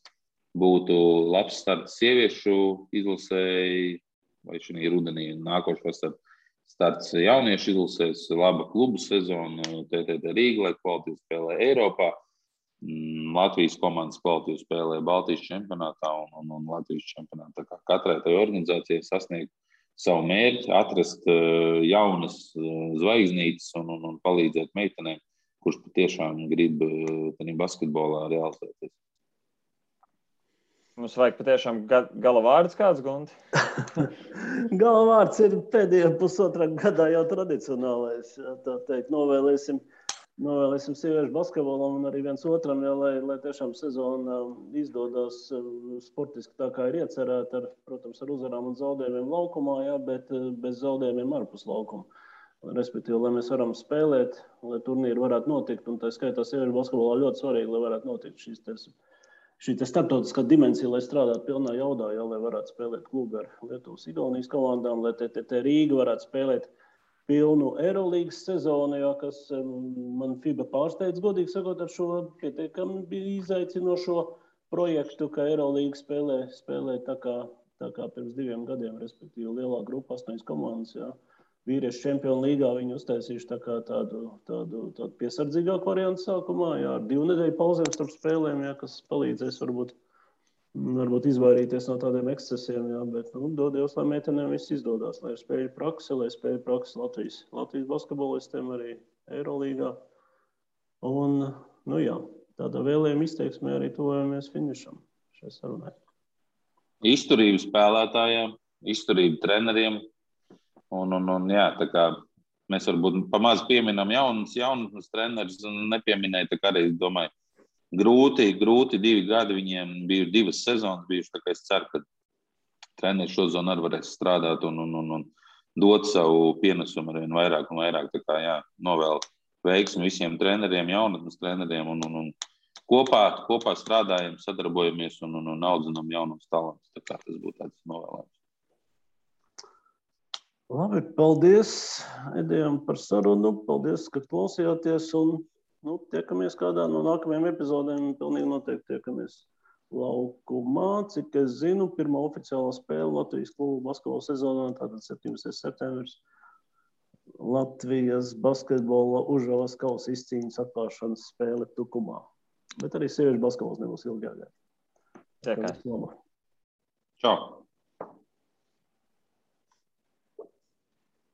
būtu labs starts sieviešu izlasēji, vai šī rudenī nākošu vasaru starts jauniešu izlasēs, laba klubu sezona, TTT Rīga, lai kvalitīvi spēlē Eiropā, Latvijas komandas kvalitīvi spēlē Baltijas čempionātā un Latvijas čempionātā. Tā kā katrai tai organizācijai sasniegt savu mērķi, atrast jaunas zvaigznītes un palīdzēt meitenēm, kurš patiešām grib basketbolā realizēties. Mums vajag patiešām gala vārds kāds, Gunti? Gala vārds ir pēdējā pusotrā gadā jau tradicionālais. Tā teikt, novēlēsim sieviešu basketbolam un arī viens otram, ja, lai tiešām sezona izdodas sportiski tā, kā ir iecerēta, protams, ar uzvarām un zaudējumiem laukumā, ja, bet bez zaudējumiem ārpus laukuma. Respektīvi, lai mēs varam spēlēt, lai turnīri varētu notikt, un tā skaitā sieviešu basketbolā ļoti svarīgi, lai varētu notikt šī starptautiskā dimensija, lai strādātu pilnā jaudā, ja, lai varētu spēlēt klubu ar Lietuvas, Igaunijas komandām, lai TTT Rīga varētu spēlēt pilnu Eirolīgas sezonu, ja, kas man FIBA pārsteidz, godīgi sakot, ar šo pietiekami bija izaicinošo projektu, ka Eirolīga spēlē tā kā pirms 2 gadiem, respektīvi lielā grupa 8 komandas, jā. Vīriešu čempionu līgā viņi uztaisījuši tā kā tādu piesardzīgāku variantu sākumā, jā, ar 2 nedēļu pauzēm starp spēlēm, jā, kas palīdzēs varbūt izvairīties no tādiem ekscesiem, jā, bet, dod Dievs, lai meitenēm viss izdodās, lai spēļu praksi Latvijas basketbolistiem arī Eirolīgā. Un, jā, tādā vēlējuma izteiksmē arī tuvojamies finišam šai sarunai. Izturība spēlētājiem, izturība treneriem. Un jā, tā kā mēs varbūt pamaz pieminam jaunus trenerus un nepieminēja, tā kā arī, domāju, grūti 2 gadi viņiem bija 2 sezonas bijuši, tā kā es ceru, ka treneri šozonu arī varēs strādāt un dot savu pienesumu arvien vairāk un vairāk, tā kā jā, novēl veiksmi visiem treneriem, jaunatnes treneriem un kopā strādājam, sadarbojamies un audzinām jaunos talantus, tā kā tas būtu tāds novēlējums. Labi, paldies Edijam par sarunu, paldies, ka klausījāties un tiekamies kādā no nākamajām epizodēm, pilnīgi noteikti tiekamies laukumā, cik es zinu, pirmā oficiālā spēle Latvijas klubu basketbola sezonā, tātad 17. septembris, Latvijas basketbola Užavas kausa izcīņas atklāšanas spēle Tukumā. Bet arī sieviešu basketbols nebūs ilgi jāgaida. Tiekās. Čau!